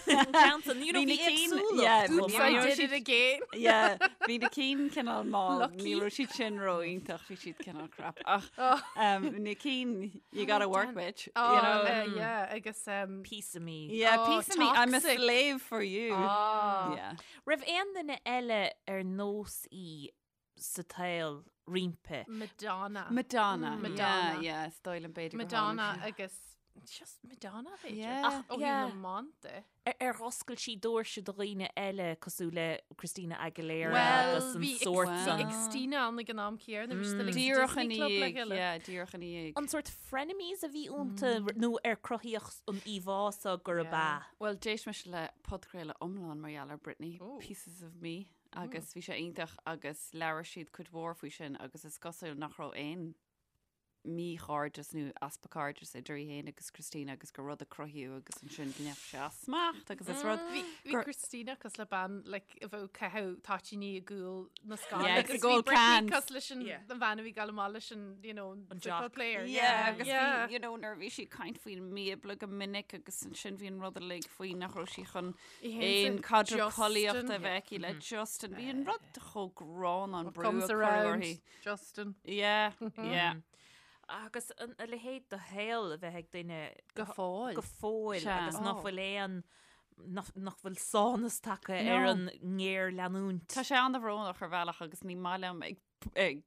Ceann you know, Bhí na bhí cinn- éagsúlacht yeah, chomh Oops, bhí- I maith. did it again. Yeah, bhí na cinn cineál mall, Lucky. ní raibh siad sin ró-iontach, bhí siad cineál crap. Ach Oh. um, na cinn, you gotta work, bitch. Oh, you know? uh, yeah, agus um, Piece of me. Yeah, Oh, piece of me, I'm a toxic. slave for you. ah. Yeah. Raibh aon duine eile ar nós í sa tsaol roimpi. Madonna. Madonna. Mm. Madonna. Yeah, yeah, is dóigh liom b'fhéidir gur Madonna tháinig sí. agus just Madonna b'fhéidir. Yeah. Ach ó Yeah. na mante. Ar ar oscail sí doirse do dhaoine eile cosúil le Christina Aguilera Well, agus an bhí sórt Wow. san. Xtina ann ag an am céanna, bhí siad uilig sa Díreach Disney ina Club le dhiaidh, chéile. yeah, díreach ina dhiaidh. An sórt frenemies a bhí iontu nó ar cruthaíodh an íomhá so gurb Yeah. ea. Well, d'éist mise le podchraoladh iomlán mar gheall ar Britney, Ooh. Pieces of Me, agus bhí sé iontach agus labhair siad cuid mhór faoi sin agus is cosúil nach raibh aon míchairdeas nó easpa cairdis idir í féin agus Christina agus gur rud a cruthaíodh agus ansin go ndeachaigh sé as smacht agus is rud Bhí bhí gur- Christina cosúil le bean like, a bheadh ag caitheamh toitíní i gcúl na scáil Yeah, agus agus bhí gold Britney cans. cosúil leis an Yeah. an bhean a bhí ag gabháil amach leis an you know, An football jock. player. Yeah, agus yeah. bhí, you know, nuair a bhí sí ag caint faoin mBíobla go minic agus ansin bhí an rud uilig faoi nach raibh sí chun Í féin aon sa caidreamh Justin. collaíochta a bheith aici le Justin. Bhí an rud chomh gránna an brú a Comes cuireadh around, uirthi. Justin. Yeah, yeah. Agus an a leithéid de shaol a bheith ag duine Go fóill. go fóill Sea. agus nach Oh. bhfuil aon nach nach bhfuil sánas tagtha No. ar an ngéarleanúint. Tá sé an-bhrónach ar bhealach agus ní maith liom ag, ag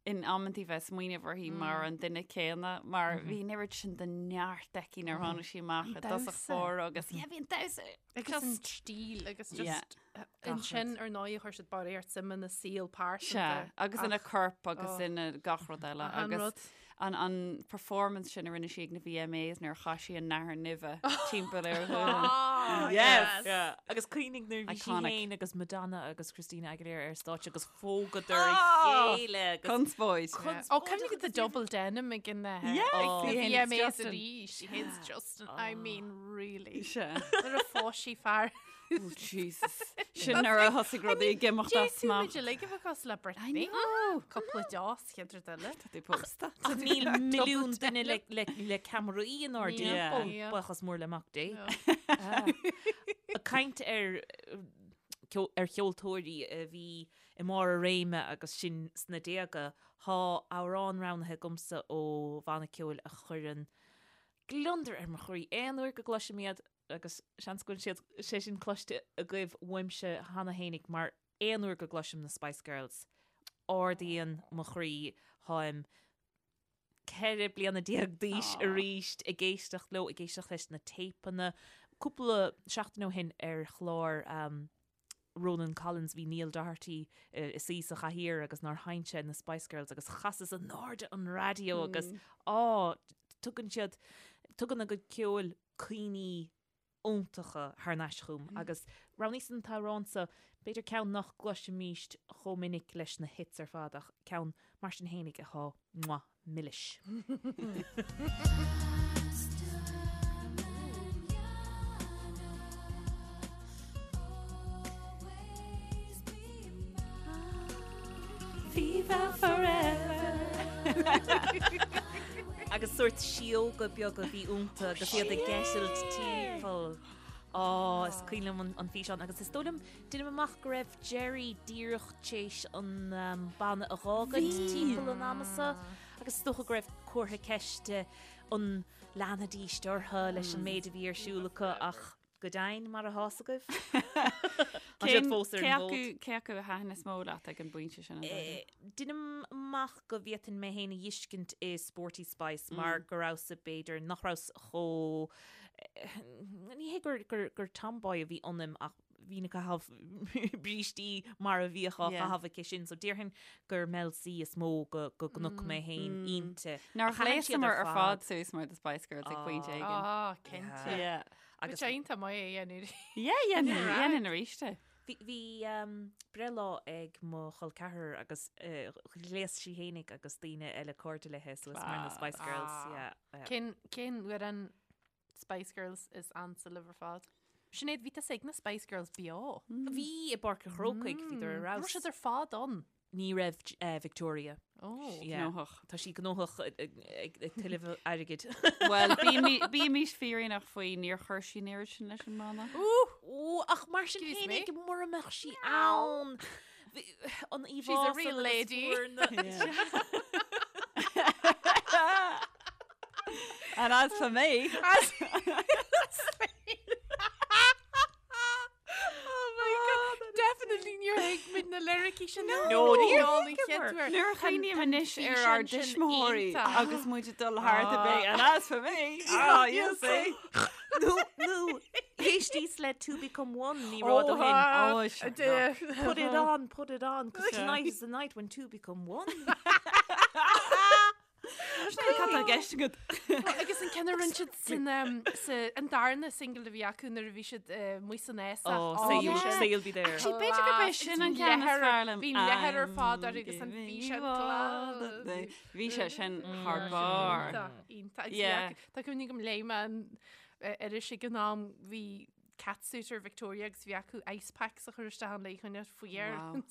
in amantaí bheith ag smaoineamh uirthi mar an duine céanna, mar bhí an oiread sin de neart aici nuair a tháinig sí amach i dtosach damhsa. báire agus yeah, bhí an damhsa Agus an just stíl agus Yeah. just ansin ar ndóigh chuir siad barraíocht suime ina saol pearsanta. Sea, agus ina Ach, corp agus oh. ina gach rud eile Achan agus rud. An an performance sin a rinne sí ag na VMAs nuair a chaith sí an nathair nimhe timpeall ar a ghualainn. Yes! Yeah. Agus cuimhnigh nuair a bhí sí Iconic. féin agus Madonna agus Christina Aguilera ar stáitse agus phógadar a chéile agus Conspóid. Ó, cuimhnigh the double denim ag an Yeah, uh, ag the VMAs VMAs Justin. arís. She hates Justin. I mean, really. Sea. Nuair a phós sí fear. Oh, Jesus. Sin nuair a thosaigh rudaí ag imeacht as smacht. D'fhéadfadh muid uilig a bheith cosúil le Britney. I know. Cúpla deos chéad rud eile. Tá tú pósta. Ach níl milliún duine le, le, le ceamaraí inár Níl. dtimpeall. Yeah. Buíochas mór le Mac Dé. Ag caint ar ar cheoltóirí a bhí i mbarr a réime agus sinn sna déaga, tá amhrán roghnaithe agamsa ó bhanna ceoil a chuireann gliondar ar mo chroí aon uair go gcloisim iad. agus seans go bhfuil siad, sé sin cloiste agaibh uaimse cheana fhéinig mar aon uair go gcloisim na Spice Girls, ardaíonn mo chroí, táim 14 bliana d'aois arís ag éisteacht leo, ag éisteacht leis na téipeanna. Cúpla seachtain ó shin ar chlár Ronan Collins bhí Neil Doherty ina suí sa chathaoir agus nár sheinn sé na Spice Girls agus chasas in airde an raidió agus á, tugann siad, tugann a gcuid ceoil cuimhní iontacha thar n-ais chugam agus roghnaíos an t-amhrán seo, b'fhéidir ceann nach gcloisimíst chomh minic leis na hits ar fad ach ceann mar sin fhéinig atá mwah, milis. Viva forever! Agus sórt síóga beaga a bhí iontu agus iad ag eitilt timpeall. Á, is cuimhin liom an físeán agus is dóigh liom, deinim amach go raibh Geri díreach t'éis an banna a dh'fhágaint timpeall an ama so agus is dócha go raibh comhartha ceiste an leanfaidíst orthu leis an méid a bhí ar siúl acu ach Go deimhin, mar atá 's agaibh. Tá siad fós ar an bhfód. Cé acu a thaitin is mó leat ag an bpointe sin? Deinim amach go bhféadfainn mé féin a dh'fheiscint i Sporty Spice mar go rabhas-sa b'fhéidir nach rabhas chomh ní hé gur gur gur tomboy a bhí ionam ach bhínn ag caitheamh brístí mar a bhíodh á chaitheamh aici sin so déarfainn gur Mel C is mó go go gconaic mé féin inti. Nár Ach thaitin siad ghléasamar ar ar fad suas mar The Spice Girls ag pointe éigin. Ah, cinnte. Yeah. Agus sé iontach maith é a dhéanamh. Yeah, dhéanfainn arís é. Bhí bhí breithlá ag mo chol ceathrar agus ghléas sí fhéinig agus daoine eile cairde léithe suas mar na Spice Girls. Yeah, yeah. Cén cén amhrán Spice Girls is ansa libh ar fad? Sinéad, bhí tusa ag na Spice Girls beo. Bhí i bPáirc an Chrócaigh, bhíodar ar Raibh fheabhas. siad ar fad ann. Ní raibh Victoria. Oh. Yeah. Gnóthach. Tá sí gnóthach ag tuilleamh airgid. Bhuel, bímís fírinneach faoi, níor chuir sí an oiread sin leis an mbanna. Ó, ach mar sin Excuse me? féinig mura mbeadh sí ann. An íomhá She's a real lady. And as for me, Oh my God. Definitely níor thuig muid na liricí sin. No, níor thuigeamar. Nuair a chuimhním anois ar ár dtuismitheoirí agus muid ag dul thart a bheith, and as for me, ah, you'll see. Nó, nó, éistíos le Two Become One ní raibh ó shin. Oh, sure. Put it on, put it on, 'cause tonight is the night when two become one. Cad tá i gceist agat? Agus an ceann a rinne siad san sa an darna single a bhí acu nuair a bhí siad amuigh san fhásach. Oh, say you'll, say you'll be there. Actually, b'fhéidir gurb é sin an ceann is fearr liom. Bhí leathar ar fad air agus an físeán glas. Bhí sé sin thar barr. Iontach, iontach. Agus bhí Yeah. acu- Tá cuimhne agam léigh mé an iris ag an am bhí catsuit ar Victoria agus bhí acu ice packs a chur isteach ann le coinneáil fuar. Wow.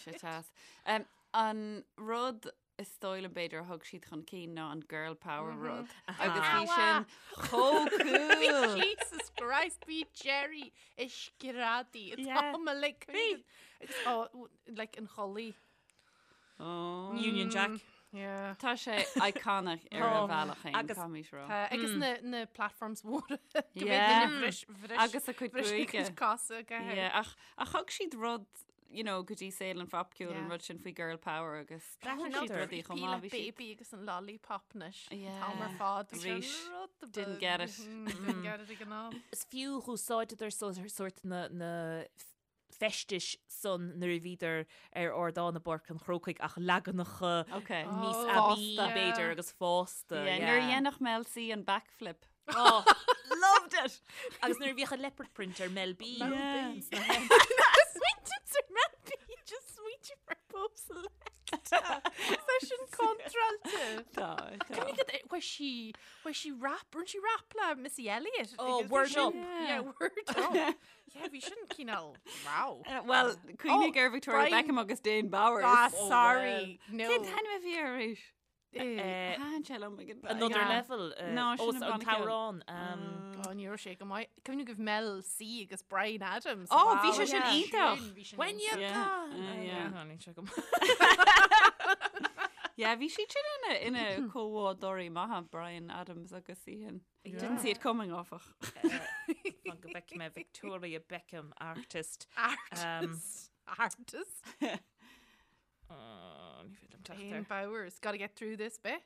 Sé teas. Um, an rud is dóigh liom b'fhéidir a thug siad chun cinn ná an girl power rud. Agus bhí sin chomh cool. Jesus Christ, bhí Geri ag screadaí Yeah. Tá like agus oh, like an chulaith. Oh. Union Jack. Yeah. Tá sé iconic ar a bhealach féin, Agus- caithfimid rá. Tá, agus na, na platforms mhóra go Yeah. bhféadfainn bhris, bhris, Agus a cuid bhris a gruaige. cuid cosa go Yeah, ach ach thug siad rud you know, go dtí saol an phopcheoil an Yeah. rud sin faoi girl power agus D'aithin siad siad rudaí chomh maith, bhí siad- baby agus an lollipop anois. Yeah. Tá ar fad. Bhí sé Arís, rud didn't beag. get it. Mm, Didn't get it ag an am. Is fiú úsáideadar sórt na, na. feistis san nuair a bhíodar ar ardán i bPáirc an Chrócaigh ach leaganacha níos Oh. aibí Fásta. b'fhéidir agus fásta. Yeah, nuair a dhéanadh Mel C an backflip. Oh, Loved it! Agus nuair a bhíodh an leopard print ar Mel B. Yeah. Smaointe ar Mel B just smaointe ar Bo Selecta. Tá sin contráilte. Tá, tá. Bhí sí bhí sí rap, rinne sí rap le Missy Elliott. Oh, agus bhí word sin- up. Yeah, word up. Yeah, bhí sin cineál wow. Well, cuimhnigh ar Victoria Brian- Beckham agus Dane Bowers. Ah, sorry. No. Cén t-ainm a bhí air arís? Eh, Thaitin sé liom ag an Another Yeah. level. eh, No, ó, sin an an banna ceoil. t-amhrán. um, Oh, ní raibh sé go maith. Cuimhnigh go Mel C agus Bryan Adams. Oh, bhí Wow, sé sin yeah. iontach. Sin, bhí sin When iontach. you're Yeah, gone. uh, yeah. Yeah, níl sé go maith. Yeah, bhí siad sin ina ina comhbhádóirí maithe Bryan Adams agus í sin. Didn't see it coming áfach. Fan go bhfeicfidh mé Victoria Beckham artist. Artist. Artist. Oh, ní féidir liom teacht Dane air. Bowers. Gotta get through this bit.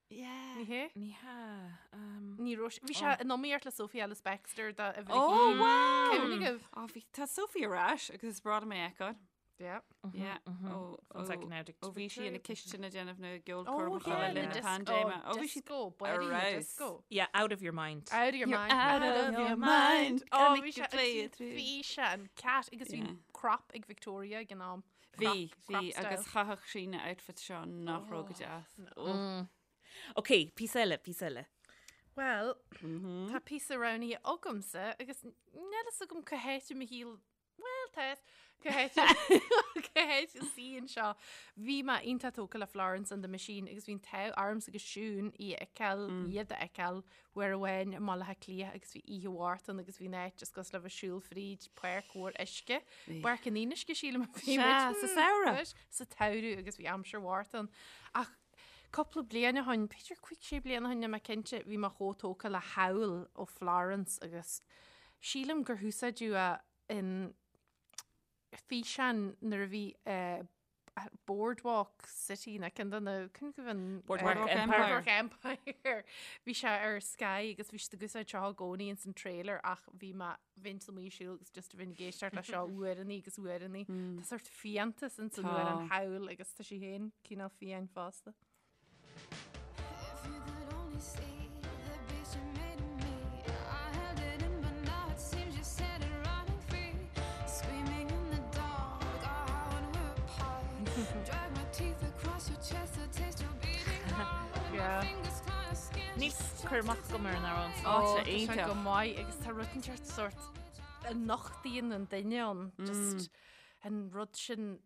Yeah. Ní hé? Ní hea. um, Ní raibh sé- Bhí sé in iomaíocht le Sophie Ellis Bextor da a bhí. Oh, wow! Cuimhnigh agaibh? Oh, bhí tá Sophie ar ais agus is breá liom é a fheiceáil. Yeah. Yeah. Ó One second now, ó bhí sí ina cistin ag déanamh na Oh, gceolchoirmeacha yeah, le na linn na disco. paindéime. Ó, bhí sí Disco. Body ar disco. Yeah, out of your mind. Out of your You're mind. out of your mind. Oh, Gonna bhí make you sé play it through. bhí sé an cat agus bhí Yeah. crop ag Victoria ag an am. Bhí, Crop- bhí crop agus style. chaitheadh sí na outfit seo nach raibh go deas. Oh. Ok, píosa eile, píosa eile. Well, tá píosa roghnaithe agamsa agus níl a fhios agam cá háit i mo shaol well, tá cá háit cá háit a suíonn seo. Bhí mé iontach tógtha le Florence and the Machine agus bhí an t-ádh ormsa agus Siún í a fheiceáil, iad a fheiceáil uair amháin i mBaile Átha Cliath agus bhí oíche mhór ann agus bhí an áit just cosúil le bheith ag siúl fríd páirc mhór uisce. Páirc an Fhionnuisce sílim a bhí Sea, muid. sa samhradh. Anois, Sa tsamhradh agus bhí aimsir mhór ann. Ach cúpla bliain ó shin, b'fhéidir 5 6 bliana ó shin, níl mé cinnte, bhí mé chomh tógtha le Howl ó Florence agus sílim gur húsáideadh é in físeán nuair a bhí eh, Boardwalk City na ceann de na cén go an Boardwalk Boardwalk Empire. Empire. Boardwalk Empire. Bhí sé ar Sky agus bhí siad ag úsáid seo i gcónaí ins an trailer ach bhí mé bhínn amuigh ag siúl agus just bhínn ag éisteacht le seo uaireannaí agus uaireannaí. Tá sórt fiántas ins an Tá. amhrán Howl agus tá sí féin cineál fiáin fosta. If you could only see the beast you made of me. I held it in, but now it seems you set it running free. Screaming in the dark, oh, how when we're apart. Drag my teeth across your chest to taste your beating heart. And my Yeah. fingers claw your skin. Níl cur amach agam ar an amhrán. Ó, tá tá sé iontach. go maith agus tá rud inteacht sórt a nochtaíonn an duine ann just an rud sin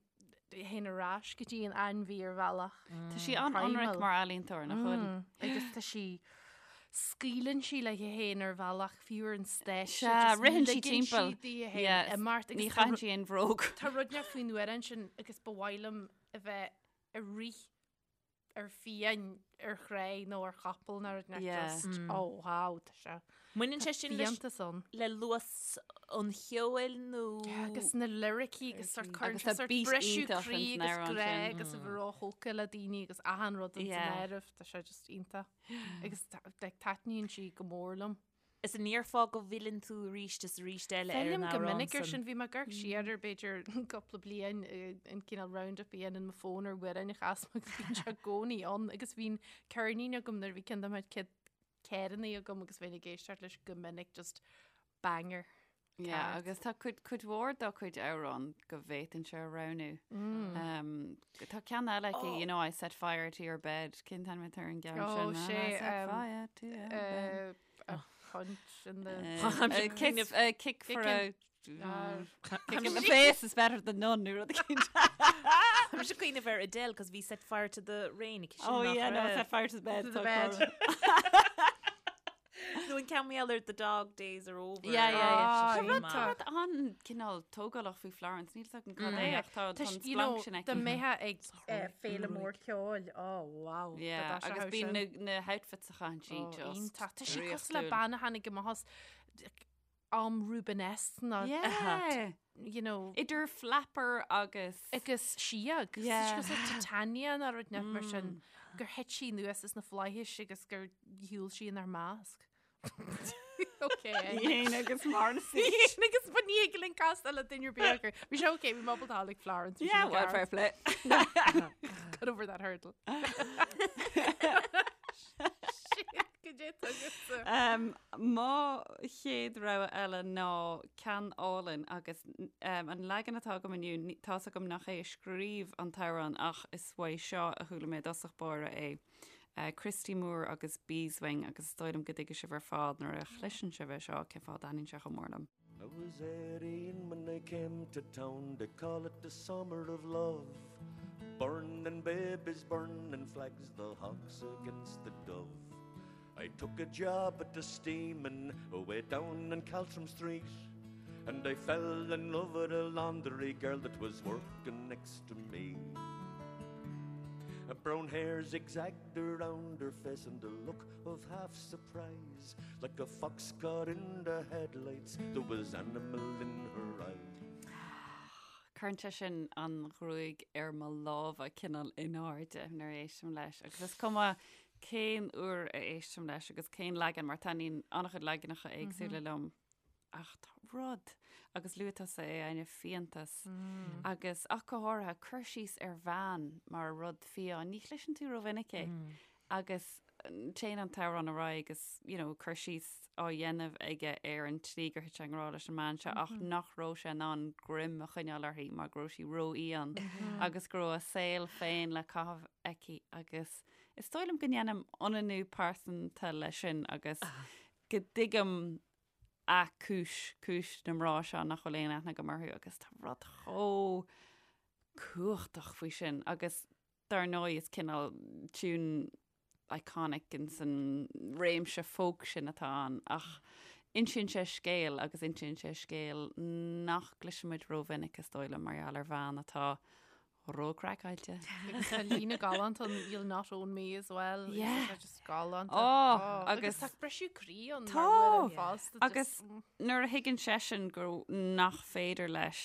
théann ar ais go dtí an ainmhí ar bhealach. Tá sí an-ionraic Primal. mar ealaíontóir nach bhfuil. Agus tá sí scaoileann sí léi féin ar bhealach fiú ar an stáitse. Sea, just ritheann sí ligeann timpeall. sí di féin Yeah, imeacht Ní agus tá chaitheann ru- sí aon bhróg. Tá rud inteacht faoin amhrán sin agus ba mhaith liom a bheith ag rith ar fiáin ar chré nó ar chapall nó rud inteacht Yeah. just oh wow tá sé Baineann sé sin leis- fiántas ann. le luas an cheoil nó Agus na liricí agus sórt cuireann Agus sé tá sórt beat briseadh iontach croí ins an agus amhrán grá sin. agus a bheith róthógtha le daoine agus achan rud ins an Yeah. áireamh tá sé just iontach. Agus like, taitníonn sí go mór liom. Is an ndéarfá go bhfilleann tú arís is arís eile ar an Fillim go amhrán minic ar san. sin bhí mé ag amharc siar ar b'fhéidir cúpla bliain eh, an cineál roundup a dhéanann mo fón ar amhráin a chas mé agus bíonn sé i gcónaí ann agus bhíonn ceirnín agam nuair a bhí ceann de mo chuid ceirníní agam agus bheinn ag éisteacht leis go minic just banger. Yeah, Ceart. agus tá cuid cuid mhór dá cuid amhrán go bhféadfainnse a roghnú. Um, tá ceann eile aici, you know, I set fire to your bed. Cén t-ainm atá ar an gceann Oh, sin? sé, I set um, fire to your bed. Uh, a punch in the Uh, I'm a kind kick, of- a kick for Kicking. a Ah, kick in the face is better than none. Nó rud éicint. Tá mise ag cuimhneamh ar Adele cos bhí set fire to the rain aici sin Oh nach yeah, no, raibh. set fire to the bed. To the tá bed. cor. Nó an ceann eile the dog days are over. Yeah, yeah, yeah. Ah, Tá rud iontach. tá rud an-cineál tógálach faoi Florence, níl a fhios agam cad é ach tá Tá tá an you know, splanc sin dá aici. mbeifeá ag eh, féile mór ceoil. Oh, wow. Yeah, agus bíonn na na houtfits a chaitheann sí Oh, just iontach. Tá sí cosúil le draíochtúil. bean a tháinig amach as am Rubenesque ná Yeah. you know, Idir flapper agus agus síog. Yeah. Cosúil le Titania nó rud inteacht mar sin gur thit sí anuas as na flaithis agus gur shiúil sí inár measc. Ok. Í fhéin agus Morrissey. Í fhéin agus ba ní thig linn castáil le duine ar bith acu. Bhí sé ok, bhí mé ábalta a like Florence. bhí Yeah, sin well, ceart. fair play. Got over that hurdle. Shit, goidé atá agatsa. Um, mo chéad rogha eile ná ceann álainn agus um, an leagan atá agam inniu, ní- tá's agam nach é a scríobh an t-amhrán ach is uaidh seo a chuala mé i dtosach báire é. Christy Moore agus Beeswing agus is dóigh liom go dtuigfidh sibh ar fad nuair a chloiseann sibh é seo cén fáth a dtaitníonn sé chomh mór liom. I was 18 when I came to town, they call it the summer of love. Burning babies, burning flags, the hawks against the dove. I took a job at the steaming away down in Caltrim Street, and I fell in love with a laundry girl that was working next to me. A brown hair zigzagged around her face and a look of half surprise, like a fox caught in the headlights, there was animal in her eyes. Cuireann sé sin an ghruaig ar mo lámha cineál in airde nuair a éistim leis agus is cuma cén uair a éistim leis agus cén leagan mar taitníonn an-chuid leaganacha éagsúla liom Ach tá rud, agus luaigh tusa é, Áine, fiántas. Agus ach go háirithe, cur síos ar bhean mar rud fiáin, ní chloiseann tú rómhinic é. Agus téann an t-amhrán ar aghaidh agus, you know, cur síos á dhéanamh aige ar an tslí gur thit sé i ngrá leis an mbean seo ach nach raibh sé in ann greim a choinneáil uirthi mar go raibh sí rófhiáin agus go raibh a saol féin le caitheamh aici agus is dóigh liom go ndéanaim ionannú pearsanta leis sin agus go dtuigim a cúis, cúis na mná seo nach bhfuil aon aithne agam orthu agus tá rud chomh cumhachtach faoi sin agus dar ndóigh is cineál tune iconic in san réimse folk sin atá ann ach insíonn sé scéal agus insíonn sé scéal nach gcloisimid rómhinic is dóigh liom mar gheall ar bhean atá Ró-craiceáilte. Agus tá líne galánta ann, you'll not own me as well. Yeah. Tá just galánta. Oh, agus agus- tá briseadh croí ann Tá. mar bhuel fosta. Agus nuair a thuigeann seisean go nach féidir leis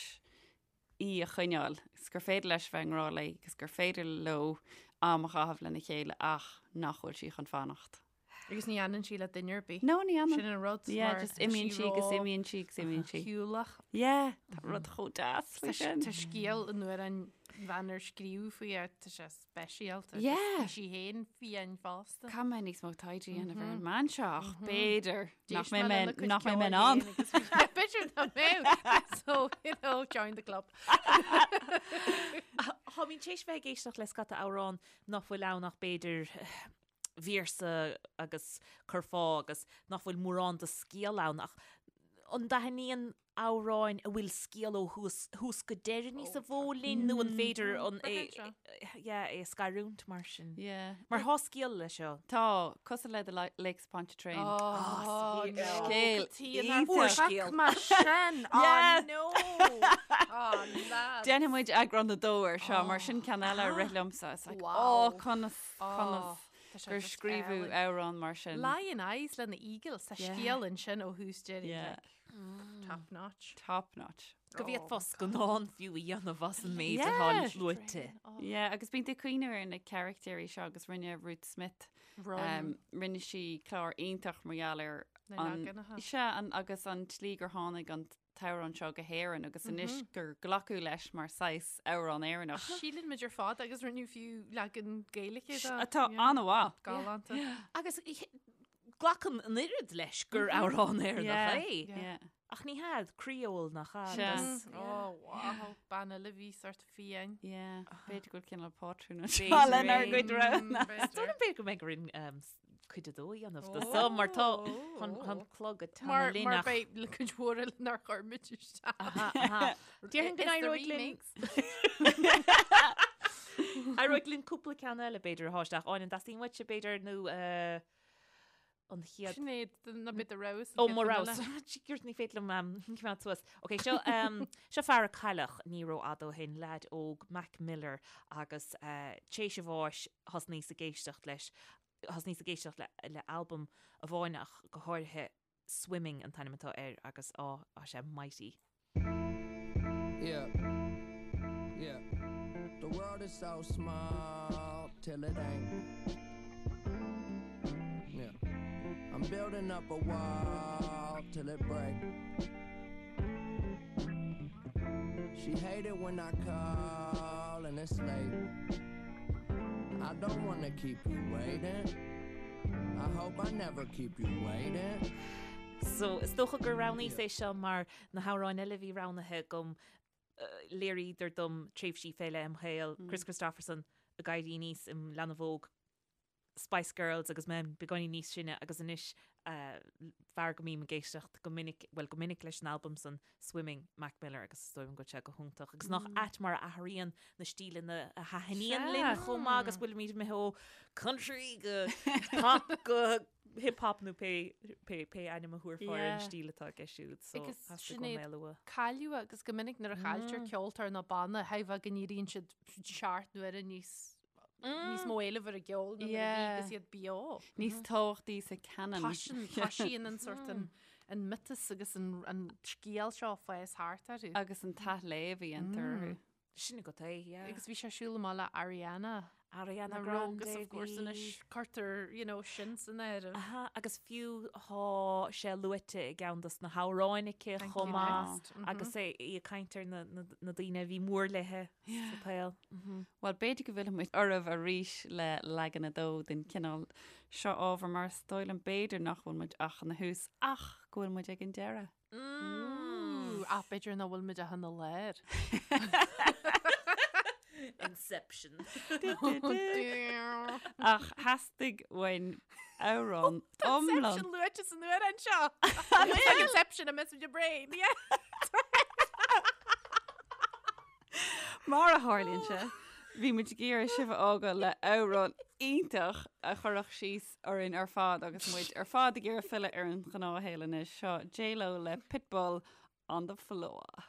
í a choinneáil, is gur féidir leis bheith i ngrá léi agus gur féidir leo am a chaitheamh lena chéile ach nach bhfuil sí chun fanacht. Agus ní fhanann sí le duine ar bith. No, ní fhanann. Sin an rud. Yeah, mar just tá imíonn sí agus ró- imíonn sí agus imíonn sí. Shiúlach. Yeah, tá rud chomh deas faoi Tá sin. tá scéal an uair an bhean ar scríobh faoi é, tá sé speisialta. Yeah. Tá sí féin fiáin fosta. Caithfidh mé níos mó taighde a dhéanamh ar an mbean seo ach b'fhéidir nach D'éist mbeidh mé mé lena cuid nach mbeidh mé in ceoil ann. féin agus bhí- B'fhéidir nach mbeidh. So, you know, join the club. Táimid tar éis bheith ag éisteacht le scata amhrán nach bhfuil ann ach b'fhéidir véarsa agus curfá agus nach bhfuil mórán de scéal ann ach an dtaitníonn amhráin a bhfuil scéal ó thús, thús go deireadh níos mó linn nó an féidir an é, yeah, é a scarúint mar sin? Yeah. Mar tá scéal leis seo. Tá, cosúil le The Lakes of Pontchartrain. Oh, no. Scéal iontach. Mar sin, oh no. Oh, lads. Déanfaidh muid eagrán a dó ar seo, mar sin ceann eile a rith liomsa. It's like, Wow. oh, conas, conas. Tá sé gur just scríobhadh álainn. amhrán mar sin. Lyin' Eyes le na Eagles, tá Yeah. scéal ansin ó thús deireadh, Yeah. like, top notch. Top notch. Go bhféadfá scannán fiú a dhéanamh as an méid atá Yeah. luaite. Yeah, agus bíonn tú ag cuimhneamh ar na carachtéirí seo agus rinne Ruth Smith, Run. um, rinne sí clár iontach mar gheall ar Na an, leaganacha. sea, an, agus an tslí gur tháinig an t-amhrán seo go hÉirinn agus anois gur glacadh leis mar saghas amhrán Éireannach. Síleann muid ar fad agus rinneadh fiú leagan Gaeilge de. Atá an-mhaith. Galánta. Agus glacann an oiread leis gur amhrán Éireannach é. Ach ní hea, Creole nach ea? Sea. Oh, wow. Bean eile a bhí sort fiáin. Yeah, b'fhéidir go bhfuil cineál pátrún anseo lenár gcuid roghanna. Is dóigh liom b'fhéidir go mbeidh orainn cuid a dó a dhéanamh de so mar tá an clog ag Mar teannadh linn mar ach beidh le cuid mhór eile nár chuir muid isteach. Aha, aha. Déarfainn go It's the n-éireoidh linn remix. Éireoidh linn cúpla ceann eile b'fhéidir a shá isteach. Áine, an dteastaíonn uaitse b'fhéidir nó eh, an chéad Sinéad, ná bit a rogha Ó, mo rogha. Jeepers, ní féidir liom um, coimeád suas. Ok, seo, um, seo fear a cailleadh ní rófhada ó shin, leaid óg, Mac Miller, agus uh, tar éis a bháis thosnaíos ag éisteacht leis thosnaíos ag éisteacht le, le albam amháin ach go háirithe Swimming an t-ainm atá air agus á, tá sé mighty. Yeah. Yeah. The world is so small till it ain't. Yeah. I'm building up a wall. till it break. She hate it when I call and it's late. I don't wanna keep you waiting. I hope I never keep you waiting. So, is dócha gur roghnaíos é seo mar na hamhráin eile a bhí roghnaithe agam, léiríodar dom tréimhsí fé leith im shaol, Kris Kristofferson ag éirí aníos im leanbh óg, Spice Girls agus mé beagáinín níos sine agus anois fear go mbím ag éisteacht go minic, bhuel go minic leis an albam san, Swimming, Mac Miller agus is dóigh liom go bhfuil sé go hiontach agus nach ait mar a athraíonn na stíleanna a thaitníonn linn chomh maith agus bhfuilimid imithe ó country go pop go hip hop nó pé pé pé ainm a thabharfá ar an stíl atá aige siúd so Agus theastaigh uaim Sinéad, é a lua. Cailleadh agus go minic nuair a chailltear ceoltóir nó banna, thuigfeá go n-éiríonn siad seacht n-uaire níos níos mó éileamh ar a gceol ná nuair a bhí agus iad beo. Níos tábhachtaí sa canon. Toisíonn toisíonn an sort an an miotas agus an an scéal seo ag fás thart orthu. Agus an t-athléamh a dhéantar orthu. Sin agat é, yeah. Agus bhí sé ag siúl amach le Ariana. Ariana Grande agus of course anois cuirtear, you know, sin san áireamh. Aha, agus fiú tá sé luaite i gceann dos na hamhráin aici chomh maith agus é í ag caint ar na na daoine a bhí mór léithe sa tsaol. Bhuel, b'fhéidir go bhfillfidh muid oraibh arís le leagan a dó den chineál seo ábhair mar is dóigh liom b'fhéidir nach bhfuil muid ach ina thús ach go bhfuil muid ag an deireadh. Ach b'fhéidir nach bhfuil muid ach ina lár. Inception. Ach theastaigh uainn amhrán iomlán. Inception luaite san amhrán seo. Inception a mess with your brain. Yeah. Mar a tharlaíonn sé, bhí muid ag iarraidh sibh a fhágáil le amhrán iontach a chuirfeadh síos orainn ar fad agus muid ar fad ag iarraidh filleadh ar an ghnáthshaol anois. Seo J-Lo le Pitbull on the floor.